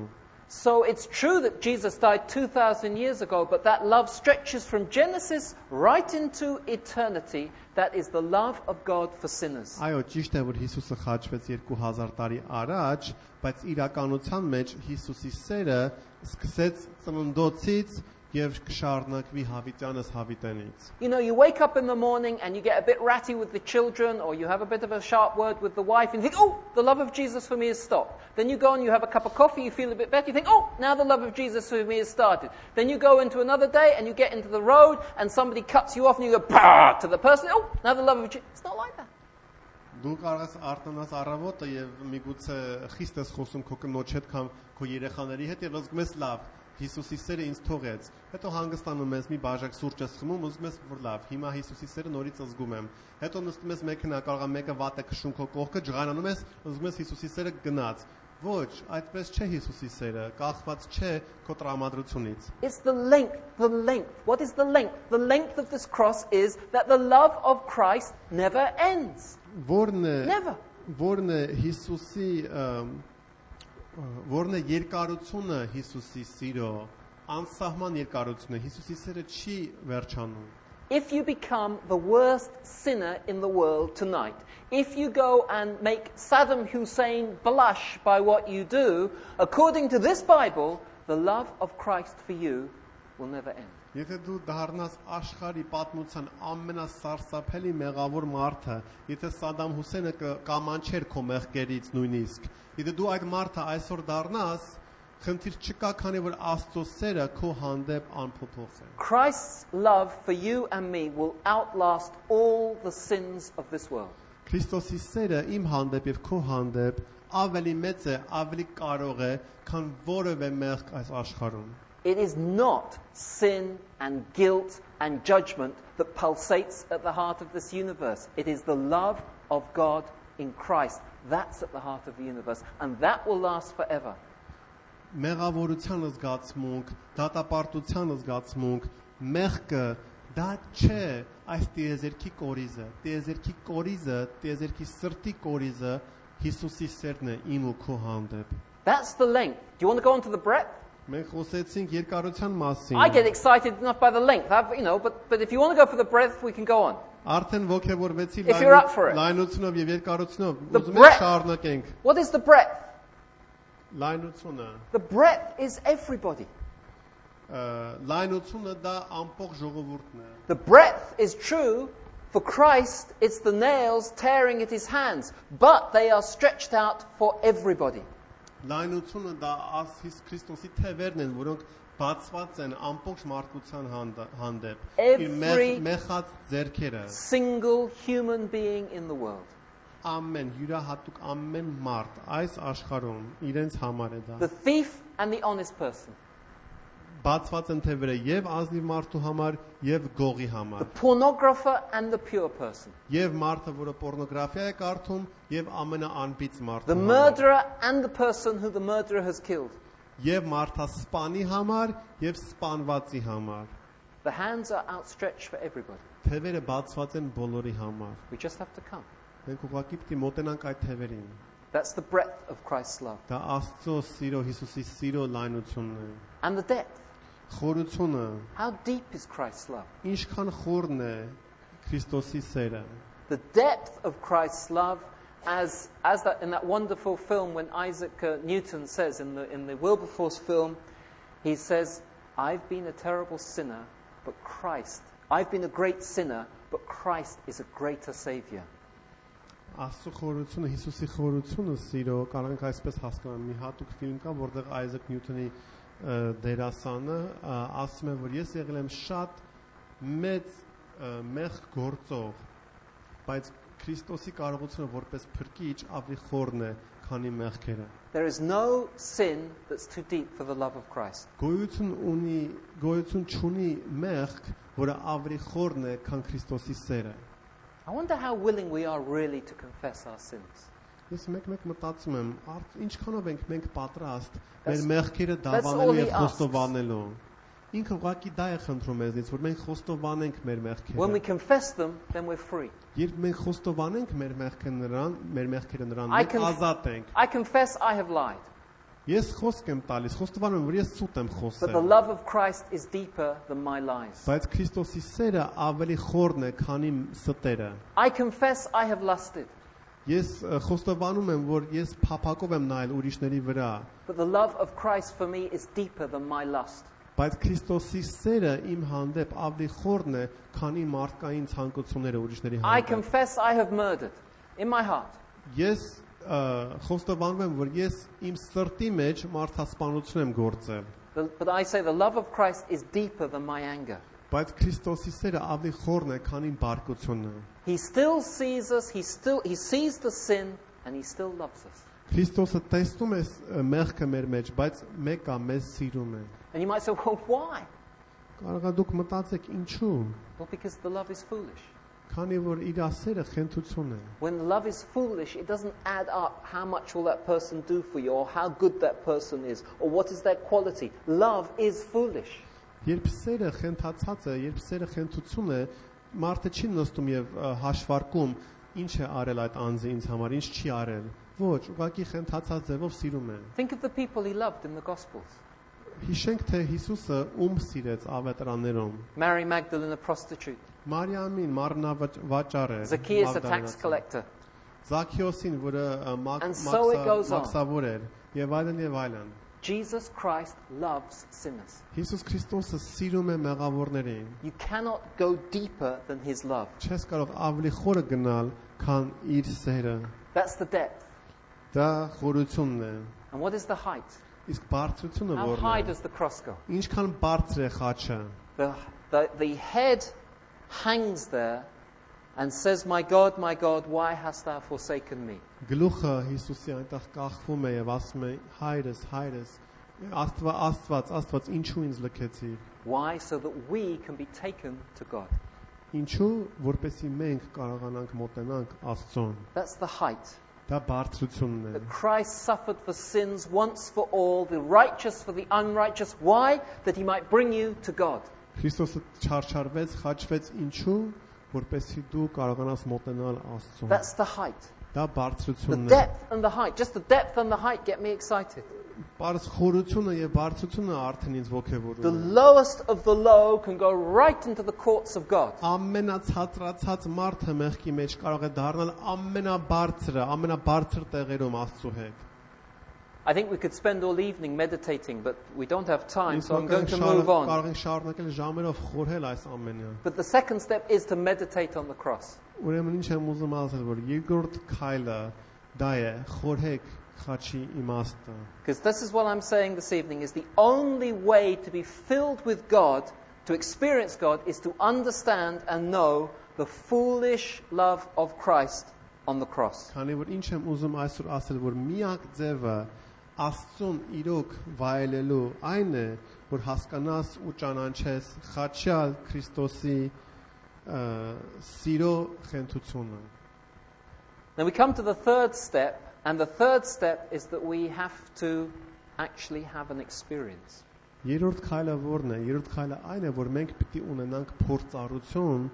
So it's true that Jesus died 2,000 years ago, but that love stretches from Genesis right into eternity. That is the love of God for sinners. Այո, ճիշտ է, որ Հիսուսը խաչվեց 2000 տարի առաջ, բայց իրականության մեջ Հիսուսի սերը սկսեց ծննդոցից եւ կշարունակվի հավիտյանս հավիտենից։ You know, you wake up in the morning and you get a bit ratty with the children, or you have a bit of a sharp word with the wife, and you think, oh, the love of Jesus for me has stopped. Then you go and you have a cup of coffee, you feel a bit better, you think, oh, now the love of Jesus for me has started. Then you go into another day and you get into the road and somebody cuts you off and you go, bah, to the person, oh, now the love of Jesus. It's not like that. Դու կարող ես արտանաս առավոտը եւ միգուցե խիստ ես խոսում քո կնոջ հետ կամ քո երեխաների հետ եւ զգում ես լավ, Հիսուսի սերը ինձ թողեց։ Հետո հանգստանում ես, մի բաժակ սուրճ ես խմում, ուզում ես որ լավ, հիմա Հիսուսի սերը նորից զգում եմ։ Հետո նստում ես մեքենա, կարող է մեկը վատ է քշում քո կողքը, ջղանանում ես, ուզում ես Հիսուսի սերը գնաց։ Ոչ, այդպես չէ Հիսուսի սերը, կախված չէ քո տրամադրությունից։ It's the length, the length. What is the length? The length of this cross is that the love of Christ never ends. Never. Որն է Հիսուսի որն է երկարությունը Հիսուսի սիրո, անսահման երկարությունը, Հիսուսի սերը չի վերջանում։ If you become the worst sinner in the world tonight, if you go and make Saddam Hussein blush by what you do, according to this Bible, the love of Christ for you will never end. Եթե դու դառնաս աշխարհի պատմության ամենասարսափելի մեղավոր մարդը, եթե Սադամ Հուսեյնը կամանչեր քո մեղքերից նույնիսկ, եթե դու այդ մարդը այսօր դառնաս, խնդիր չկա, քանի որ Աստծո սերը քո հանդեպ անփոփոխ է։ Christ's love for you and me will outlast all the sins of this world. Քրիստոսի սերը իմ հանդեպ եւ քո հանդեպ ավելի մեծ է, ավելի կարող է, քան որևէ մեղք այս աշխարհում։ It is not sin and guilt and judgment that pulsates at the heart of this universe. It is the love of God in Christ. That's at the heart of the universe. And that will last forever. Մեղավորության զգացմունք, դատապարտության զգացմունք, մեղքը դա չէ այս տիեզերքի կորիզը։ Տիեզերքի կորիզը, տիեզերքի սրտի կորիզը Հիսուսի սերն է իմ ու քո հանդեպ։ That's the length. Do you want to go on to the breadth? Մենք խոսեցինք երկարության մասին։ I get excited enough by the length, but if you want to go for the breadth, we can go on. Արդեն ողջևորվեցի լայնությունով եւ երկարությունով, ուզում եք շարունակենք։ What is the breadth? Լայնությունը։ The breadth is everybody. Լայնությունը դա ամբողջ ժողովուրդն է։ The breadth is true for Christ, it's the nails tearing at his hands, but they are stretched out for everybody. Լայնությունը դա Քրիստոսի թևերն են, որոնք բացված են ամբողջ մարդկության հանդեպ։ Իր մեխած ձեռքերը։ Single human being in the world. Ամեն յուրահատուկ ամեն մարդ այս աշխարհում իրենց համար է դա։ The thief and the honest person. Բացված են թևերը եւ ազնիվ մարդու համար եւ գողի համար։ The pornographer and the pure person. Եվ մարդը, որը պորնոգրաֆիա է կարդում, եւ ամենաանբիծ մարդը։ The murderer and the person who the murderer has killed. Եվ մարդը սպանի համար եւ սպանվածի համար։ The hands are outstretched for everybody. Թևերը բացված են բոլորի համար։ We just have to come. Մենք ուղղակի պիտի մոտենանք այդ թևերին։ That's the breadth of Christ's love. Դա Աստծո սիրո, Հիսուսի սիրո լայնությունն է։ And the depth. Խորությունը How deep is Christ's love? ինչքան խորն է Քրիստոսի սերը։ The depth of Christ's love, as that in that wonderful film when Isaac Newton says in the Wilberforce film, he says, "I've been a terrible sinner, but I've been a great sinner, but Christ is a greater Savior." Աստծո խորությունը, Հիսուսի խորությունը սիրո, կարող ենք այսպես հասկանալ, մի հատուկ ֆիլմ կա, որտեղ Isaac Newton-ի դերասանը ասում է, որ ես եղել եմ շատ մեծ մեղք գործող, բայց Քրիստոսի կարողությունը որպես փրկիչ ավելի խորն է, քանի մեղքերը։ There is no sin that's too deep for the love of Christ. Գոյություն չունի մեղք, որը ավելի խորն է, քան Քրիստոսի սերը։ I wonder how willing we are really to confess our sins. Ես մեկ մտածում եմ, ինչքանով ենք մենք պատրաստ մեր That's մեղքերը all դավանելու he եւ asks. խոստովանելու։ Ինքը ուղղակի դա է խնդրում մեզնից, որ մենք խոստովանենք մեր When we մեղքերը։ confess them, then we're free. Երբ մենք խոստովանենք մեր մեղքերը նրան, I մենք can- ազատ ենք։ I confess I have lied, Ես խոսք եմ տալիս, խոստովանում եմ, որ ես սուտ եմ but the խոսել։ love of Christ is deeper than my lies. Բայց Քրիստոսի սերը ավելի խորն է, քան իմ ստերը։ I confess I have lusted, Ես խոստովանում եմ, որ ես փափակով եմ նայել ուրիշների վրա, but the love of Christ for me is deeper than my lust. բայց Քրիստոսի սերը իմ հանդեպ ավելի խորն է, քան իմ մարդկային ցանկությունները ուրիշների I հանդեպ։ confess I have murdered in my heart, Ես խոստովանում եմ, որ ես իմ սրտի մեջ մարդասպանություն եմ գործել, but I say the love of Christ is deeper than my anger. բայց Քրիստոսի սերը ավելի խորն է, քան իմ բարկությունը։ He still sees us, he sees the sin, and he still loves us. Քրիստոսը տեսնում է մեղքը մեր մեջ, բայց մեկը մեզ սիրում է։ And you might say, well, why? Կարող է դուք մտածեք ինչու՞։ Well, because the love is foolish. Քանի որ իր սերը խենթություն է։ When the love is foolish, it doesn't add up how much will that person do for you, or how good that person is, or what is their quality. Love is foolish. Երբ սերը խենթացած է, երբ սերը խենթություն է, մարդը չի նստում եւ հաշվարկում ինչ է արել այդ անձը ինձ համար, ինչ չի արել։ Ոչ, ուղղակի խենթացած ձևով սիրում է։ Think of the people he loved in the Gospels. Հիշենք թե Հիսուսը ում սիրեց ավետարաններում։ Mary Magdalene, a prostitute. Մարիամին մարմնավաճառ է։ Zacchaeus, a tax collector. Զաքեոսին, որը And so it goes on. մաքսավոր էր, եւ այլն եւ այլն։ Jesus Christ loves sinners. Հիսուս Քրիստոսը սիրում է մեղավորներին։ You cannot go deeper than his love. Չես կարող ավելի խորը գնալ, քան իր սերը։ That's the depth. Դա խորությունն է։ And what is the height? Իսկ բարձրությունը How որն high է։ does the cross go? Ինչքան բարձր է խաչը։ The head hangs there and says, my God, why hast thou forsaken me? Գլուխը Հիսուսի այնտեղ կախվում է եւ ասում է. Հայրս, Աստված, ինչու ինձ լքեցիր։ Why? So that we can be taken to God. Ինչու, որպեսզի մենք կարողանանք մոտենանք Աստծուն։ That's the height. Դա բարձրությունն է։ That Christ suffered for sins once for all, the righteous for the unrighteous. Why? That he might bring you to God. Քրիստոսը չարչարվեց, խաչվեց ինչու, որպեսզի դու կարողանաս մոտենալ Աստծուն։ That's the height. Դա The բարձրությունն է։ depth and the height. Just the depth and the height get me excited. Բարձ խորությունը եւ բարձրությունը արդեն ինձ The ոգևորում է։ lowest of the low can go right into the courts of God. Ամենացածրացած մարդը մեղքի մեջ կարող է դառնալ ամենաբարձր տեղերում Աստծո հետ։ I think we could spend all evening meditating, but we don't have time, Իսկ so I'm going to կարող move on. կարող ենք շարունակել ժամերով խորհել այս ամենը։ But the second step is to meditate on the cross. Ուրեմն ինչ եմ ուզում ասել, որ երկրորդ քայլը դա է, խորհեք խաչի իմաստը։ Because this is what I'm saying this evening, is the only way to be filled with God, to experience God, is to understand and know the foolish love of Christ on the cross. Քանի որ ինչ եմ ուզում այսօր ասել, որ միակ ձևը Աստծուն իրոք վայելելու այն է, որ հասկանաս ու ճանաչես խաչյալ Քրիստոսի սիրո խենթությունը։ Now we come to the third step, and the third step is that we have to actually have an experience. Երրորդ քայլը ո՞րն է։ Երրորդ քայլը այն է, որ մենք պիտի ունենանք փորձառություն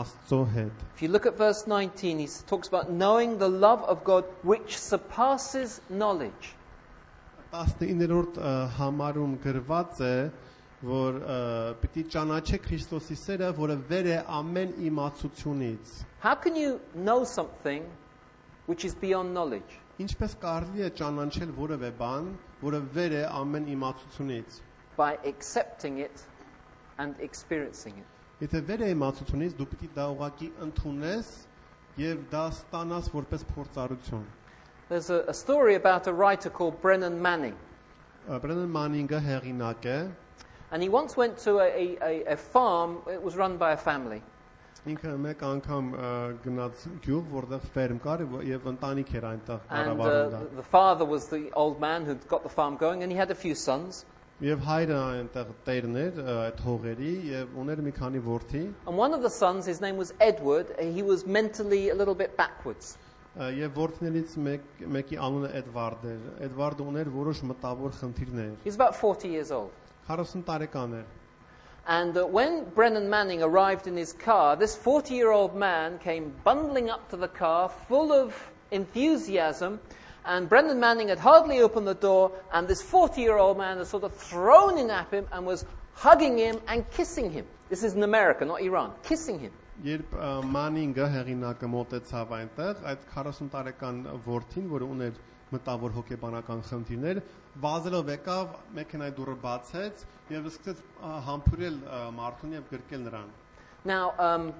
Աստծո հետ։ If you look at verse 19, he talks about knowing the love of God which surpasses knowledge. 19-րդ համարում գրված է, որ պիտի ճանաչեք Քրիստոսի սերը, որը վեր է ամեն իմացությունից։ How can you know something which is beyond knowledge? Ինչպես կարելի է ճանաչել որևէ բան, որը վեր է ամեն իմացությունից։ By accepting it and experiencing it. Եթե վեր է իմացությունից, դու պիտի դա ուղղակի ընդունես եւ դա ստանաս որպես փորձառություն։ There's a story about a writer called Brennan Manning. Բրենան Մանինգը հեղինակ է, And he once went to a farm. It was run by a family. ինքը մեկ անգամ գնաց գյուղ, որտեղ ֆերմ կար եւ ընտանիք էր այնտեղ And կառավարում դա։ the father was the old man who'd got the farm going, and he had a few sons. Եվ հայրը այնտեղ տերն էր այդ հողերի եւ ուներ մի քանի որդի, And one of the sons, his name was Edward, he was mentally a little bit backwards. եւ որդիներից մեկի անունը Էդվարդ էր։ Էդվարդը ուներ որոշ մտավոր խնդիրներ։ He was about 40 years old. 40 տարեկան էր։ And when Brennan Manning arrived in his car, this 40-year-old man came bundling up to the car full of enthusiasm. And Brennan Manning had hardly opened the door, and this 40-year-old man had sort of thrown in at him and was hugging him and kissing him. This is in America, not Iran. Kissing him. Երբ Մանինգը հեղինակը մոտեցավ այնտեղ, այդ 40 տարեկան որդին, որը ուներ մտավոր հոգեբանական խնդիրներ, վազելով եկավ, մեքենայի դուռը բացեց եւ սկսեց համբուրել մարդուն եւ գրկել նրան։ Now,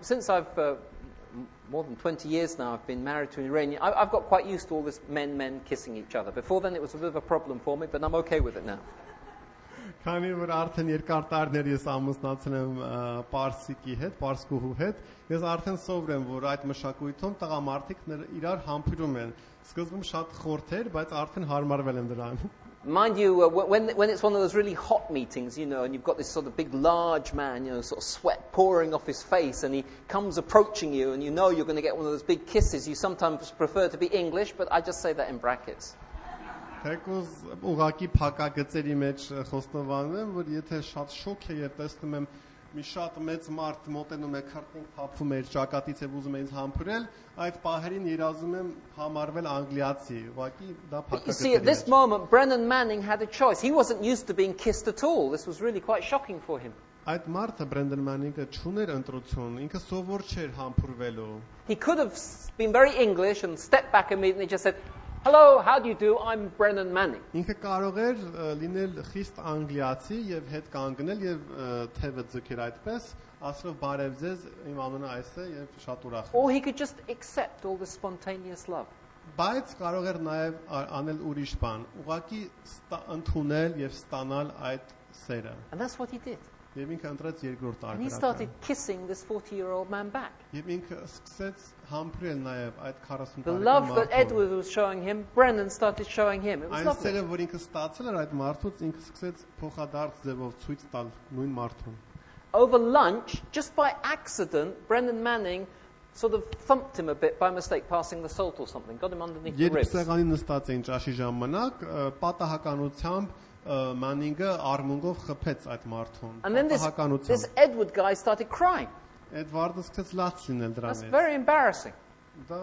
since I've more than 20 years now, I've been married to an Iranian. I've got quite used to all this men kissing each other. Before then, it was a bit of a problem for me, but I'm okay with it now. Քանի որ արդեն երկար տարիներ ես ամուսնացել եմ Պարսիկի հետ, Պարսկուհու հետ, ես արդեն սովոր եմ, որ այդ մշակույթում տղամարդիկ իրար համբուրում են։ Սկզբում շատ խորթ էր, բայց արդեն հարմարվել եմ դրան։ Mind you, when it's one of those really hot meetings, you know, and you've got this sort of big, large man, you know, sort of sweat pouring off his face, and he comes approaching you, and you know you're going to get one of those big kisses. You sometimes prefer to be English, but I just say that in brackets. Թեկուզ ուղակի փակագծերի մեջ խոստովանում եմ, որ եթե շատ շոկ է եւ տեսնում եմ մի շատ մեծ մարդ մոտենում է քարտին փափվում է ճակատից եւ ուզում է ինձ համբուրել, այդ պահերին երազում եմ համարվել անգլիացի, ուղղակի դա You փակագծերի see, at this moment, Brennan Manning had a choice. He wasn't used to being kissed at all. This was really quite shocking for him. Այդ մարդը Բրենդեն Մանինգը չուներ ընտրություն, ինքը սովոր չէր համբուրվելու։ He could have been very English and stepped back immediately and just said, "Hello, how do you do? I'm Brennan Manning." Ինքը կարող էր լինել խիստ անգլիացի եւ հետ կանգնել եւ թևը ձգեր այդպես, ասելով բարև ձեզ, իմ անունը այս է եւ շատ ուրախ եմ։ Or he could just accept all the spontaneous love. Բայց կարող էր նաեւ անել ուրիշ բան, ուղղակի ընդունել եւ ստանալ այդ սերը։ And that's what he did. Եվ ինքը ընտրեց երկրորդ And he արկրակը։ started kissing this 40-year-old man back. Եվ ինքը սկսեց համբուրել նաեւ այդ 40 The տարեկան love that մարդուն։ Edward was showing him, Brennan started showing him. It was Այն lovely. սերը, որ ինքը ստացել էր այդ մարդուց, ինքը սկսեց փոխադարձ ձևով ցույց տալ նույն մարդուն։ Over lunch, just by accident, Brennan Manning sort of thumped him a bit by mistake, passing the salt or something, got him underneath the Երբ ribs. սեղանին նստած էին ճաշի ժամանակ, պատահականությամբ Մանինգը արմունգով խփեց այդ մարդուն։ And then this Edward guy started crying. Էդվարդը սկսեց լաց լինել That's դրանից։ very embarrassing. Դա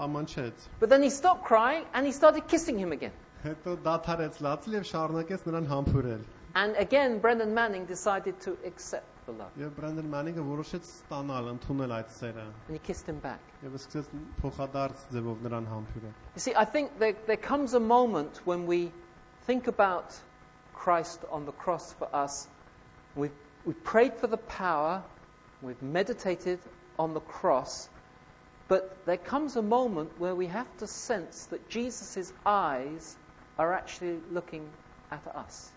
ամանչեց։ But then he stopped crying and he started kissing him again. Հետո դադարեց լացել եւ շարունակեց նրան համբուրել։ And again, Brennan Manning decided to accept the love. Եվ Բրենդեն Մանինգը որոշեց ստանալ, ընդունել այդ սերը And he kissed him back. եւ սկսեց փոխադարձ ձևով նրան համբուրել։ You see, I think there comes a moment when we think about Christ on the cross for us. We've prayed for the power, we've meditated on the cross, but there comes a moment where we have to sense that Jesus' eyes are actually looking at us.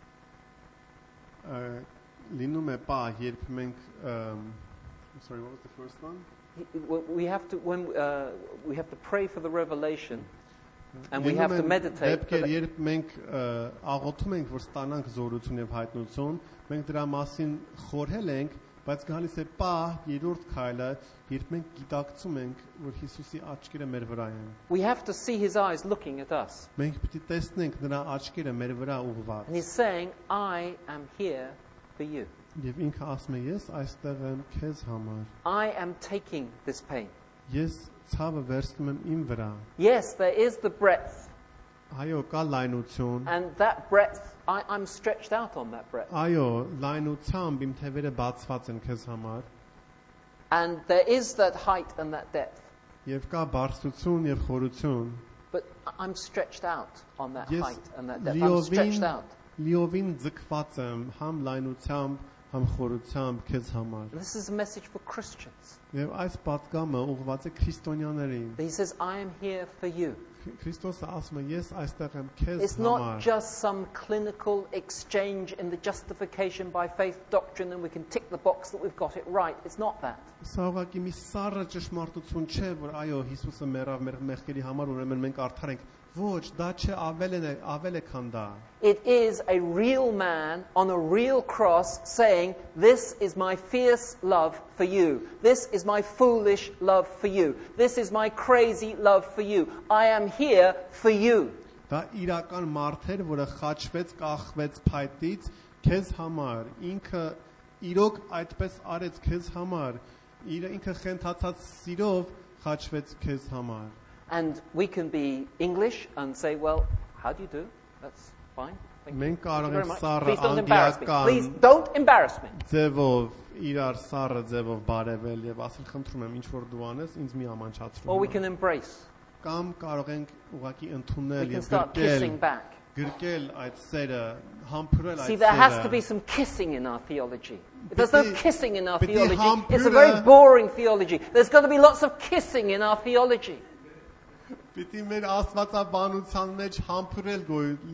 Լինում է պահ, երբ մենք sorry, what was the first one? We have to pray for the revelation, and we have to meditate. Դեպքեր, երբ մենք աղոթում ենք, որ ստանանք զորություն եւ հայտնություն, մենք դրա մասին խորհել ենք, բայց գալիս է պահ, երրորդ քայլը, երբ մենք գիտակցում ենք, որ Հիսուսի աչքերը մեր վրա են։ We have to see his eyes looking at us. Մենք պիտի տեսնենք նրա աչքերը մեր վրա ուղղված։ And he's saying, I am here for you. Եվ ինքը ասում է, ես այստեղ եմ քեզ համար։ I am taking this pain. Ես ցավը վերցնում եմ իմ վրա։ Yes, there is the breadth, Այո, կա լայնություն, and that breadth I'm stretched out on that breadth. Այո, լայնությամբ իմ թևերը բացված են քեզ համար, And there is that height and that depth. եւ կա բարձրություն եւ խորություն։ But I'm stretched out on that Ես height and that depth. I'm stretched out. լիովին ձգված եմ համ լայնությամբ, համ խորությամբ քեզ համար։ And this is a message for Christians. Եվ այս պատգամը ուղղված է քրիստոնյաներին։ He says, I am here for you. Քրիստոսը ասում է, ես այստեղ եմ քեզ It's not համար։ just some clinical exchange in the justification by faith doctrine and we can tick the box that we've got it right. It's not that. Սա ուղղակի մի սառը ճշմարտություն չէ, որ այո, Հիսուսը մեռավ մեր մեղքերի համար, ուրեմն մենք արդար ենք։ Ոչ, դա չէ, ավել է քան դա։ It is a real man on a real cross saying, this is my fierce love for you. This is my foolish love for you. This is my crazy love for you. I am here for you. Դա իրական մարդ էր, որը խաչվեց, կախվեց փայտից քեզ համար։ Ինքը իրոք այդպես արեց քեզ համար։ Ինքը խենթացած սիրով խաչվեց քեզ համար։ And we can be English and say, well, how do you do? That's fine. Thank you. Մենք կարող Very ենք much. սառը Please don't embarrass me. Please անգլիական don't embarrass me. ձևով իրար սառը ձևով բարևել եւ ասել խնդրում եմ ինչ որ դու անես ինձ մի Or ամանչացրու։ we can embrace. Կամ կարող ենք ուղղակի We ընդունել can եւ start kissing back. գրկել այդ սերը, համբուրել See, այդ there has to be սերը։ some kissing in our theology. If there's no Piti- kissing in our piti theology, it's a hampura- very boring theology. There's got to be lots of kissing in our theology. Պիտի մեր աստվածաբանության մեջ համբուրել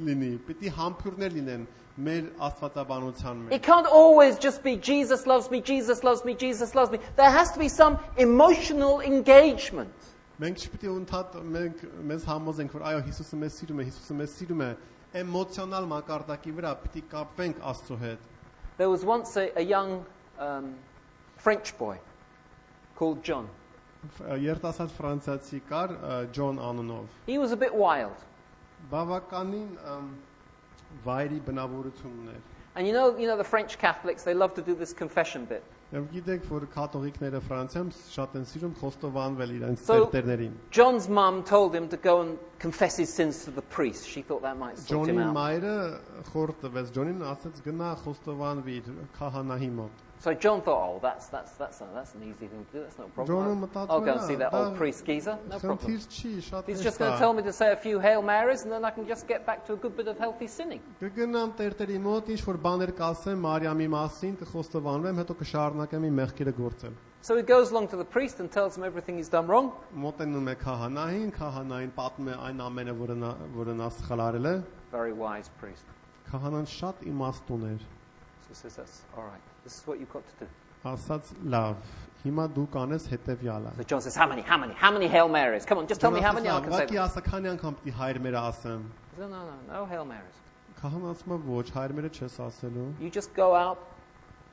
լինի, պիտի համբուրներ լինեն մեր աստվածաբանության մեջ։ It can't always just be Jesus loves me, Jesus loves me, Jesus loves me. There has to be some emotional engagement. Մենք չպիտի մենք մեզ համոզենք, որ այո, Հիսուսը մեզ սիրում է, Հիսուսը մեզ սիրում է, էմոցիոնալ մակարդակի վրա պիտի կապվենք Աստծո հետ։ There was once a young French boy called John. Երիտասարդ ֆրանսիացի կար Ջոն անունով։ He was a bit wild. Բավականին վայրի բնավորություն ուներ։ And you know the French Catholics, they love to do this confession bit. Եվ գիտեք, որ կաթողիկները Ֆրանսիայում շատ են սիրում խոստովանվել իրենց So- տերտերներին։ John's mum told him to go and confess his sins to the priest. She thought that might sort him Ջոնի out. մայրը խորտ տվեց Ջոնին, ասաց գնա խոստովանվիր քահանայի մոտ։ So John thought, oh, that's an easy thing to do. That's not a Ջոնը problem. մտածում I'll go and է, see that դա old priest geezer. No problem. խնդիր չի, շատ He's հեշտ just going to է։ tell me to say a few Hail Marys and then I can just get back to a good bit of healthy sinning. Կգնամ տերտերի մոտ, ինչ որ բաներ կասեմ Մարիամի մասին, կխոստովանվեմ, հետո կշարունակեմ իմ մեղքերը գործել։ So he goes along to the priest and tells him everything he's done wrong. Մոտենում է քահանային պատմում է այն ամենը, որը նա սխալ արել է։ Very wise priest. Քահանան շատ իմաստուն էր։ So he says, that's all right. This is what you've got to do. Ասաց լավ, հիմա դու կանես հետևյալը։ So John says, how many Hail Marys? Come on, just tell me how many I can say. Ուղղակի ասա քանի անգամ պիտի հայր մերը ասեմ։ He says, no Hail Marys. Քահանան ասում է ոչ, հայր մերը չես ասելու։ You just go out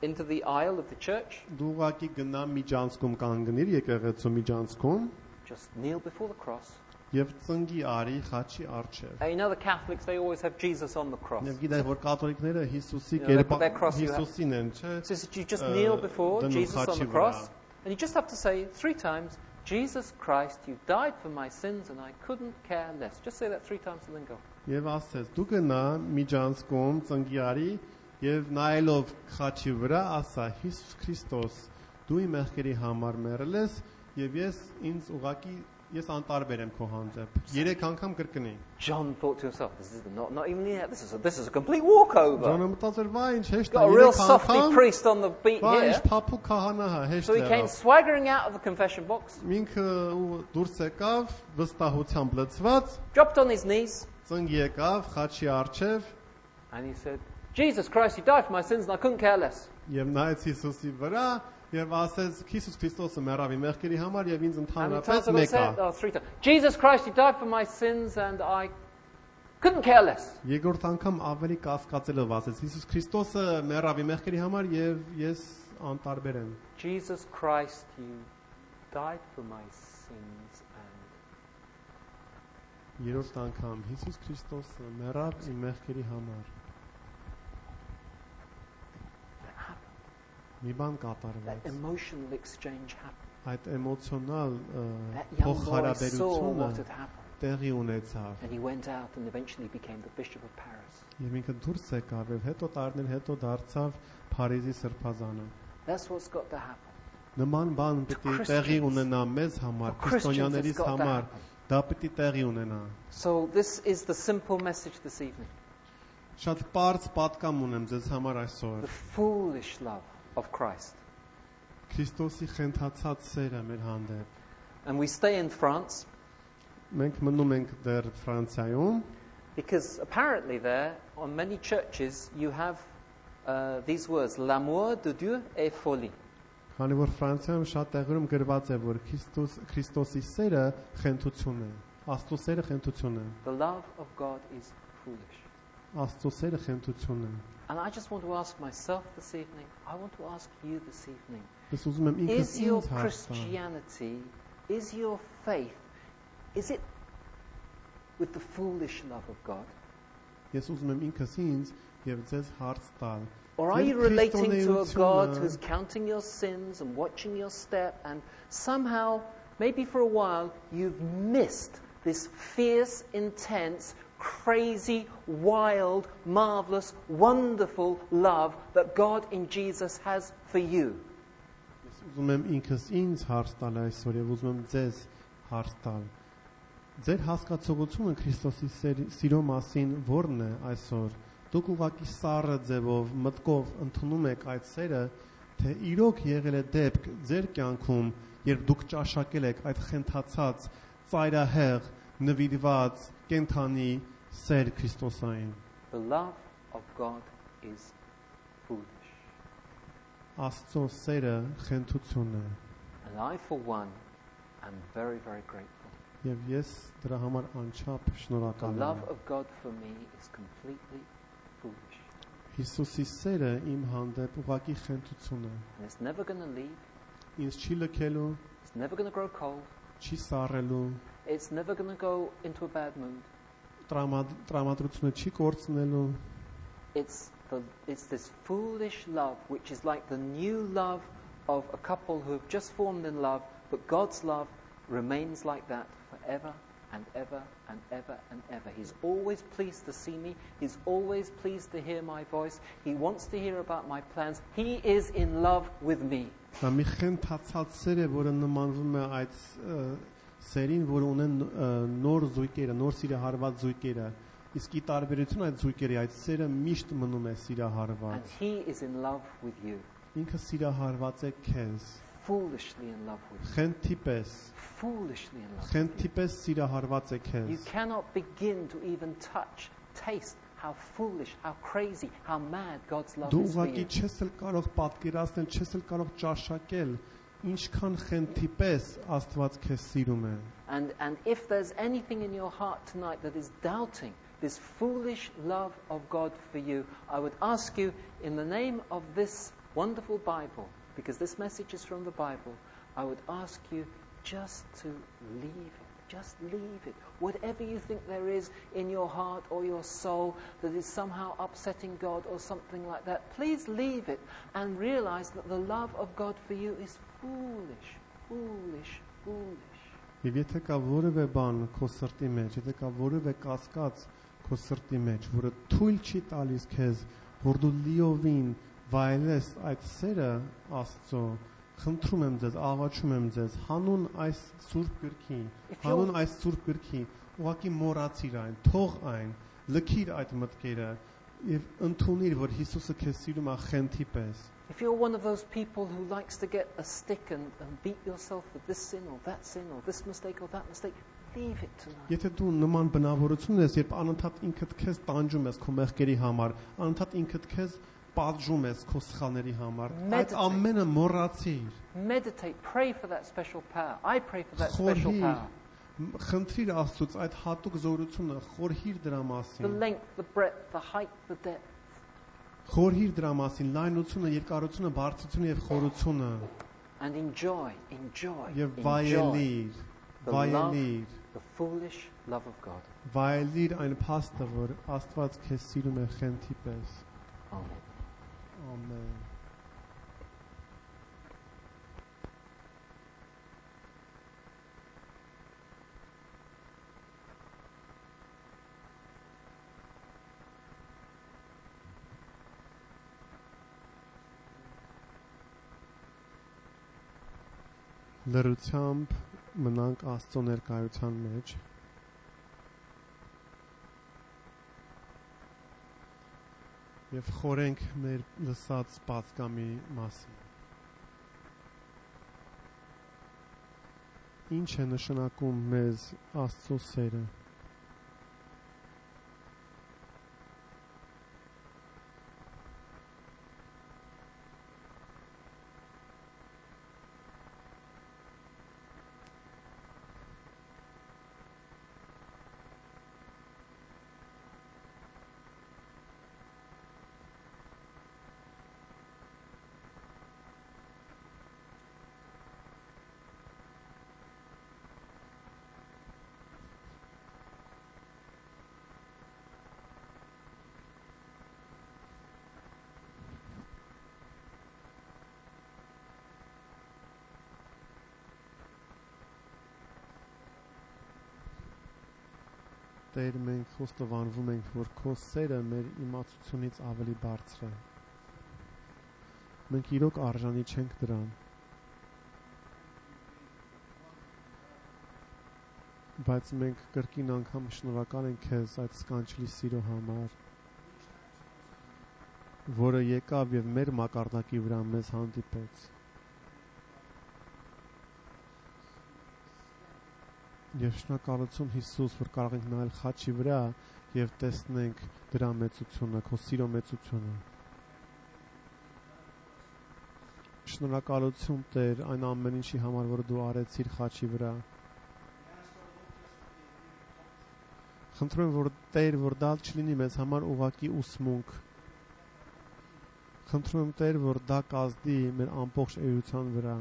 into the aisle of the church, Դու ուղղակի գնա միջանցքում կանգնիր եկեղեցու միջանցքում just kneel before the cross. եւ ծնգի արի խաչի առջև։ And you know the Catholics, they always have Jesus on the cross. Եվ գիտեք որ կաթոլիկները Հիսուսի You know, they put կերպ their cross you have- Հիսուսին են, չէ։ So you just kneel before dănu Jesus on the xaci cross, văra. and you just have to say 3 times, Jesus Christ, you died for my sins and I couldn't care less. Just say that 3 times and then go. Եվ ասես դու գնա միջանցքում ծնգի արի եւ նայելով խաչի վրա ասա Հիսուս Քրիստոս դու իմ մեղքերի համար մեռել ես եւ ես անտարբեր եմ քո հանդեպ 3 անգամ կրկնի John thought to himself, this is not even here. This is a complete walkover. Ջոնը մտածեր վայ ինչ հեշտ Got a է real 3 softy անգամ priest on the beat վայ ինչ here. փափուկ քահանա հա հեշտ So he came է swaggering out of the confession box, ինքը դուրս եկավ վստահությամբ լցված dropped on his knees, ծնգ եկավ խաչի առջև and he said, Jesus Christ, you died for my sins and I couldn't care less. եւ նայեց Հիսուսի վրա եւ ասեց Հիսուս Քրիստոսը մեռավ իմ մեղքերի համար եւ ինձ And he ընդհանրապես told him, մեկ է 3 times. Jesus Christ, you died for my sins and I couldn't care less. Երկրորդ անգամ ավելի կասկածելով ասեց Հիսուս Քրիստոսը մեռավ իմ մեղքերի համար եւ ես անտարբեր եմ Jesus Christ, you died for my sins and Երրորդ անգամ Հիսուս Քրիստոսը մեռավ իմ մեղքերի համար Մի բան that կատարվեց emotional exchange happened. այդ էմոցիոնալ That young boy saw փոխհարաբերությունը what had happened. տեղի ունեցավ։ And he went out and eventually became the Bishop of Paris. Եվ ինքը դուրս եկավ եւ հետո տարիներ հետո դարձավ Փարիզի սրբազանը։ That's what's got to happen. Նման բան պետք է տեղի ունենա մեզ համար, քրիստոնյաներից համար, դա պետք է տեղի ունենա։ So this is the simple message this evening. Շատ པարզ պատկամ ունեմ ձեզ համար այսօր։ The foolish love of Christ. Քրիստոսի խենթացած սերը մեր հանդեպ։ And we stay in France Մենք մնում ենք դեռ Ֆրանսիայում, because apparently there, on many churches, you have these words, l'amour de Dieu est folie. քանի որ Ֆրանսիայում շատ տեղերում գրված է, որ Քրիստոսի սերը խենթություն է, Աստծո սերը խենթություն է, The love of God is foolish. Աստծո սերը խենթություն է։ And I just want to ask myself this evening, I want to ask you this evening, Ես ուզում եմ ինքս is your ինձ հարց տալ։ Christianity, is your faith, is it with the foolish love of God? Ես ուզում եմ ինքս ինձ եւ ձեզ հարց տալ։ Or are you relating to a God who's counting your sins and watching your step, and somehow, maybe for a while, you've missed this fierce, intense, crazy, wild, marvelous, wonderful love that God in Jesus has for you? Ես ուզում եմ ինքս ինձ հարց տալ այսօր եւ ուզում եմ ձեզ հարց տալ։ Ձեր հասկացողությունը Քրիստոսի սիրո մասին ո՞րն է այսօր։ Դուք ուղղակի սառը ձևով մտկով ընդունում եք այդ սերը, թե իրոք եղել է դեպք ձեր կյանքում, երբ դուք ճաշակել եք այդ խենթացած, ծայրահեղ, նվիրված, կենթանի սեր Քրիստոսային։ The love of God is foolish. Աստծո սերը խենթություն է, And I, for one, am very, very grateful. եւ ես դրա համար անչափ The շնորհակալ love եմ։ of God for me is completely foolish. Հիսուսի սերը իմ հանդեպ ուղղակի խենթություն է։ And it's never going to leave. Ինձ չի լքելու, It's never going to grow cold. չի սառելու, It's never going to go into a bad mood. տրամադրությունը չի կորցնելու։ It's this foolish love, which is like the new love of a couple who have just formed in love, but God's love remains like that forever and ever and ever and ever. He's always pleased to see me. He's always pleased to hear my voice. He wants to hear about my plans. He is in love with me. Դա մի խենթացած սեր է, որը նմանվում է այդ սերին, որ ունեն նոր զույգերը, նոր սիրահարված զույգերը։ Իսկ ի տարբերություն այդ զույգերի, այդ սերը միշտ մնում է And սիրահարված։ He is in love with you. Ինքը սիրահարված է քեզ, Foolishly in love with you. խենթի պես, Foolishly in love with խենթի պես սիրահարված է you. քեզ։ You cannot begin to even touch, taste how foolish, how crazy, how mad God's love Դու is for ուղղակի you. չես էլ կարող պատկերացնել, չես էլ կարող ճաշակել, ինչքան խենթի պես Աստված քեզ սիրում է։ And if there's anything in your heart tonight that is doubting this foolish love of God for you, I would ask you, in the name of this wonderful Bible, because this message is from the Bible, I would ask you just to leave it. Just leave it. Whatever you think there is in your heart or your soul that is somehow upsetting God or something like that, please leave it and realize that the love of God for you is foolish, foolish, foolish. Եվ եթե կա որևէ բան քո սրտի մեջ, եթե կա որևէ կասկած քո սրտի մեջ, որը թույլ չի տալիս քեզ, որ դու լիովին վայելես այդ սերը Աստծո, խնդրում եմ ձեզ, աղաչում եմ ձեզ, հանուն այս սուրբ գրքի, հանուն այս սուրբ գրքի, ուղղակի մոռացիր այն, թող այն, լքիր այդ մտքերը եւ ընդունիր, որ Հիսուսը քեզ սիրում է խենթի պես։ If you're one of those people who likes to get a stick and beat yourself with this sin or that sin or this mistake or that mistake, leave it tonight. Եթե դու նման բնավորություն ես, երբ անընդհատ ինքդ քեզ տանջում ես քո մեղքերի համար, անընդհատ ինքդ քեզ պատժում ես քո սխալների համար, այդ ամենը մոռացիր։ Meditate, pray for that special power. I pray for that special power. Խնդրիր Աստծուց այդ հատուկ զորությունը, խորհիր դրա The մասին։ length, the breadth, the height, the depth. Խորհիր դրա մասին, լայնությունը, երկարությունը, բարձրությունը եւ խորությունը And enjoy, enjoy, եւ enjoy վայելիր, the love, վայելիր, the foolish love of God. վայելիր այն փաստը, որ Աստված քեզ սիրում է խենթի պես։ Amen. Ամեն։ Լրությամբ մնանք Աստծո ներկայության մեջ եւ խորենք մեր լսած պատգամի մասին։ Ինչ է նշանակում մեզ Աստծո սերը։ Տեր, մենք խոստովանվում ենք, որ քո սերը մեր իմացությունից ավելի բարձր է։ Մենք իրոք արժանի չենք դրան։ Բայց մենք կրկին անգամ շնորհակալ ենք քեզ այդ սքանչելի սիրո համար, որը եկավ եւ մեր մակարդակի վրա մեզ հանդիպեց։ Եվ շնորհակալություն Հիսուս, որ կարող ենք նայել խաչի վրա եւ տեսնենք դրա մեծությունը, քո սիրո մեծությունը։ Շնորհակալություն Տեր այն ամեն ինչի համար, որ դու արեցիր խաչի վրա։ Խնդրում եմ, որ Տեր, որ դա չլինի մեզ համար ուղղակի ուսմունք։ Խնդրում եմ Տեր, որ դա կազդի մեր ամբողջ էության վրա։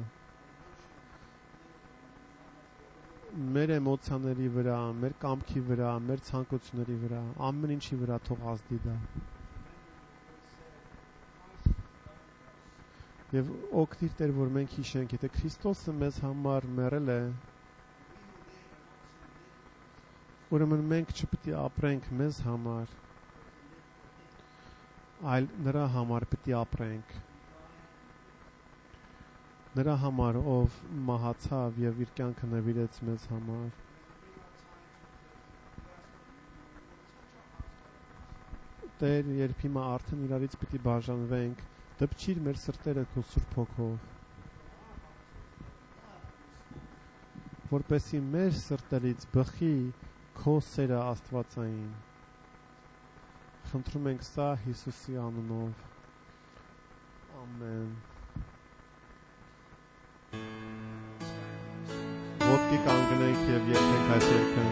Մեր էմոցիաների վրա, մեր կամքի վրա, մեր ցանկությունների վրա, ամեն ինչի վրա թող ազդի դա։ Եվ օգնիր Տեր, որ մենք հիշենք, եթե Քրիստոսը մեզ համար մեռել է, ուրեմն մենք չպետք է ապրենք մեզ համար, այլ նրա համար պետք է ապրենք։ Նրա համար, ով մահացավ եւ իր կյանքը նվիրեց մեզ համար։ Տեր, երբ հիմա արդեն իրարից պիտի բաժանվենք, դպչիր մեր սրտերը քո Սուրբ Հոգով, որպեսզի մեր սրտերից բխի քո սերը աստվածային։ Խնդրում ենք սա Հիսուսի անունով։ Ամեն։ Ոտքի կանգնենք եւ երգենք այս երգը։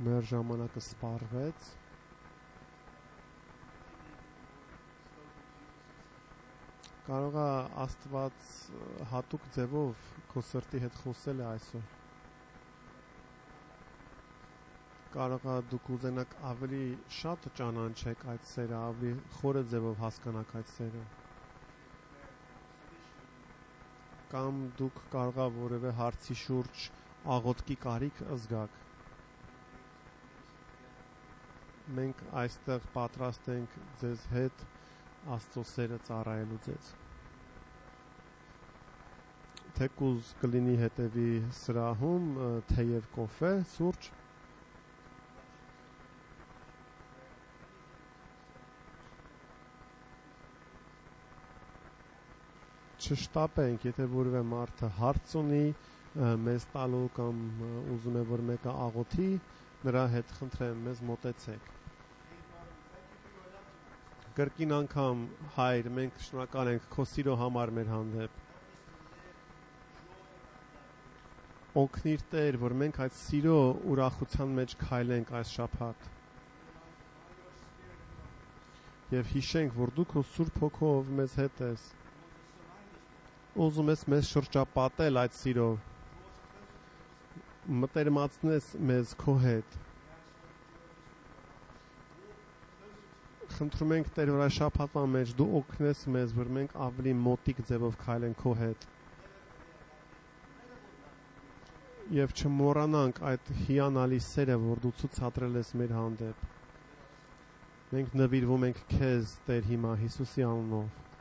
Մեր ժամանակը սպառվեց։ Կարող է Աստված հատուկ ձևով քո սրտի հետ խոսել է այսօր։ Կարող է դուք ուզենաք ավելի շատ ճանաչեք այդ սերը, ավելի խորը ձևով հասկանաք այդ սերը։ Կամ դուք կարող է որևէ հարցի շուրջ աղոթքի կարիք զգաք։ Մենք այստեղ պատրաստ ենք ձեզ հետ Աստծո սերը ծառայելու ձեզ։ Թեկուզ կլինի հետևի սրահում թեյ եւ կոֆե, սուրճ։ Չշտապենք, եթե որևէ մարդը հարց ունի մեզ տալու կամ ուզում է որ մեկը աղոթի, նրա հետ խնդրեմ մեզ մոտեցեք։ Կրկին անգամ հայր, մենք շնորհակալ ենք քո սիրո համար մեր հանդեպ։ Օգնիր Տեր, որ մենք այդ սիրո ուրախության մեջ քայլենք այս շաբաթ։ Եվ հիշենք, որ դու քո Սուրբ Հոգով մեզ հետ ես։ Ուզում ես մեզ շրջապատել այդ սիրով։ Մտերմացնես մեզ քո հետ։ Խնդրում ենք Տեր, որ այս շաբաթվա մեջ դու օգնես մեզ, որ մենք ավելի մոտիկ ձևով քայլենք քո հետ։ Եվ չմոռանանք այդ հիանալի սերը, որ դու ցուցադրել ես մեր հանդեպ։ Մենք նվիրվում ենք քեզ, Տեր, հիմա Հիսուսի անունով։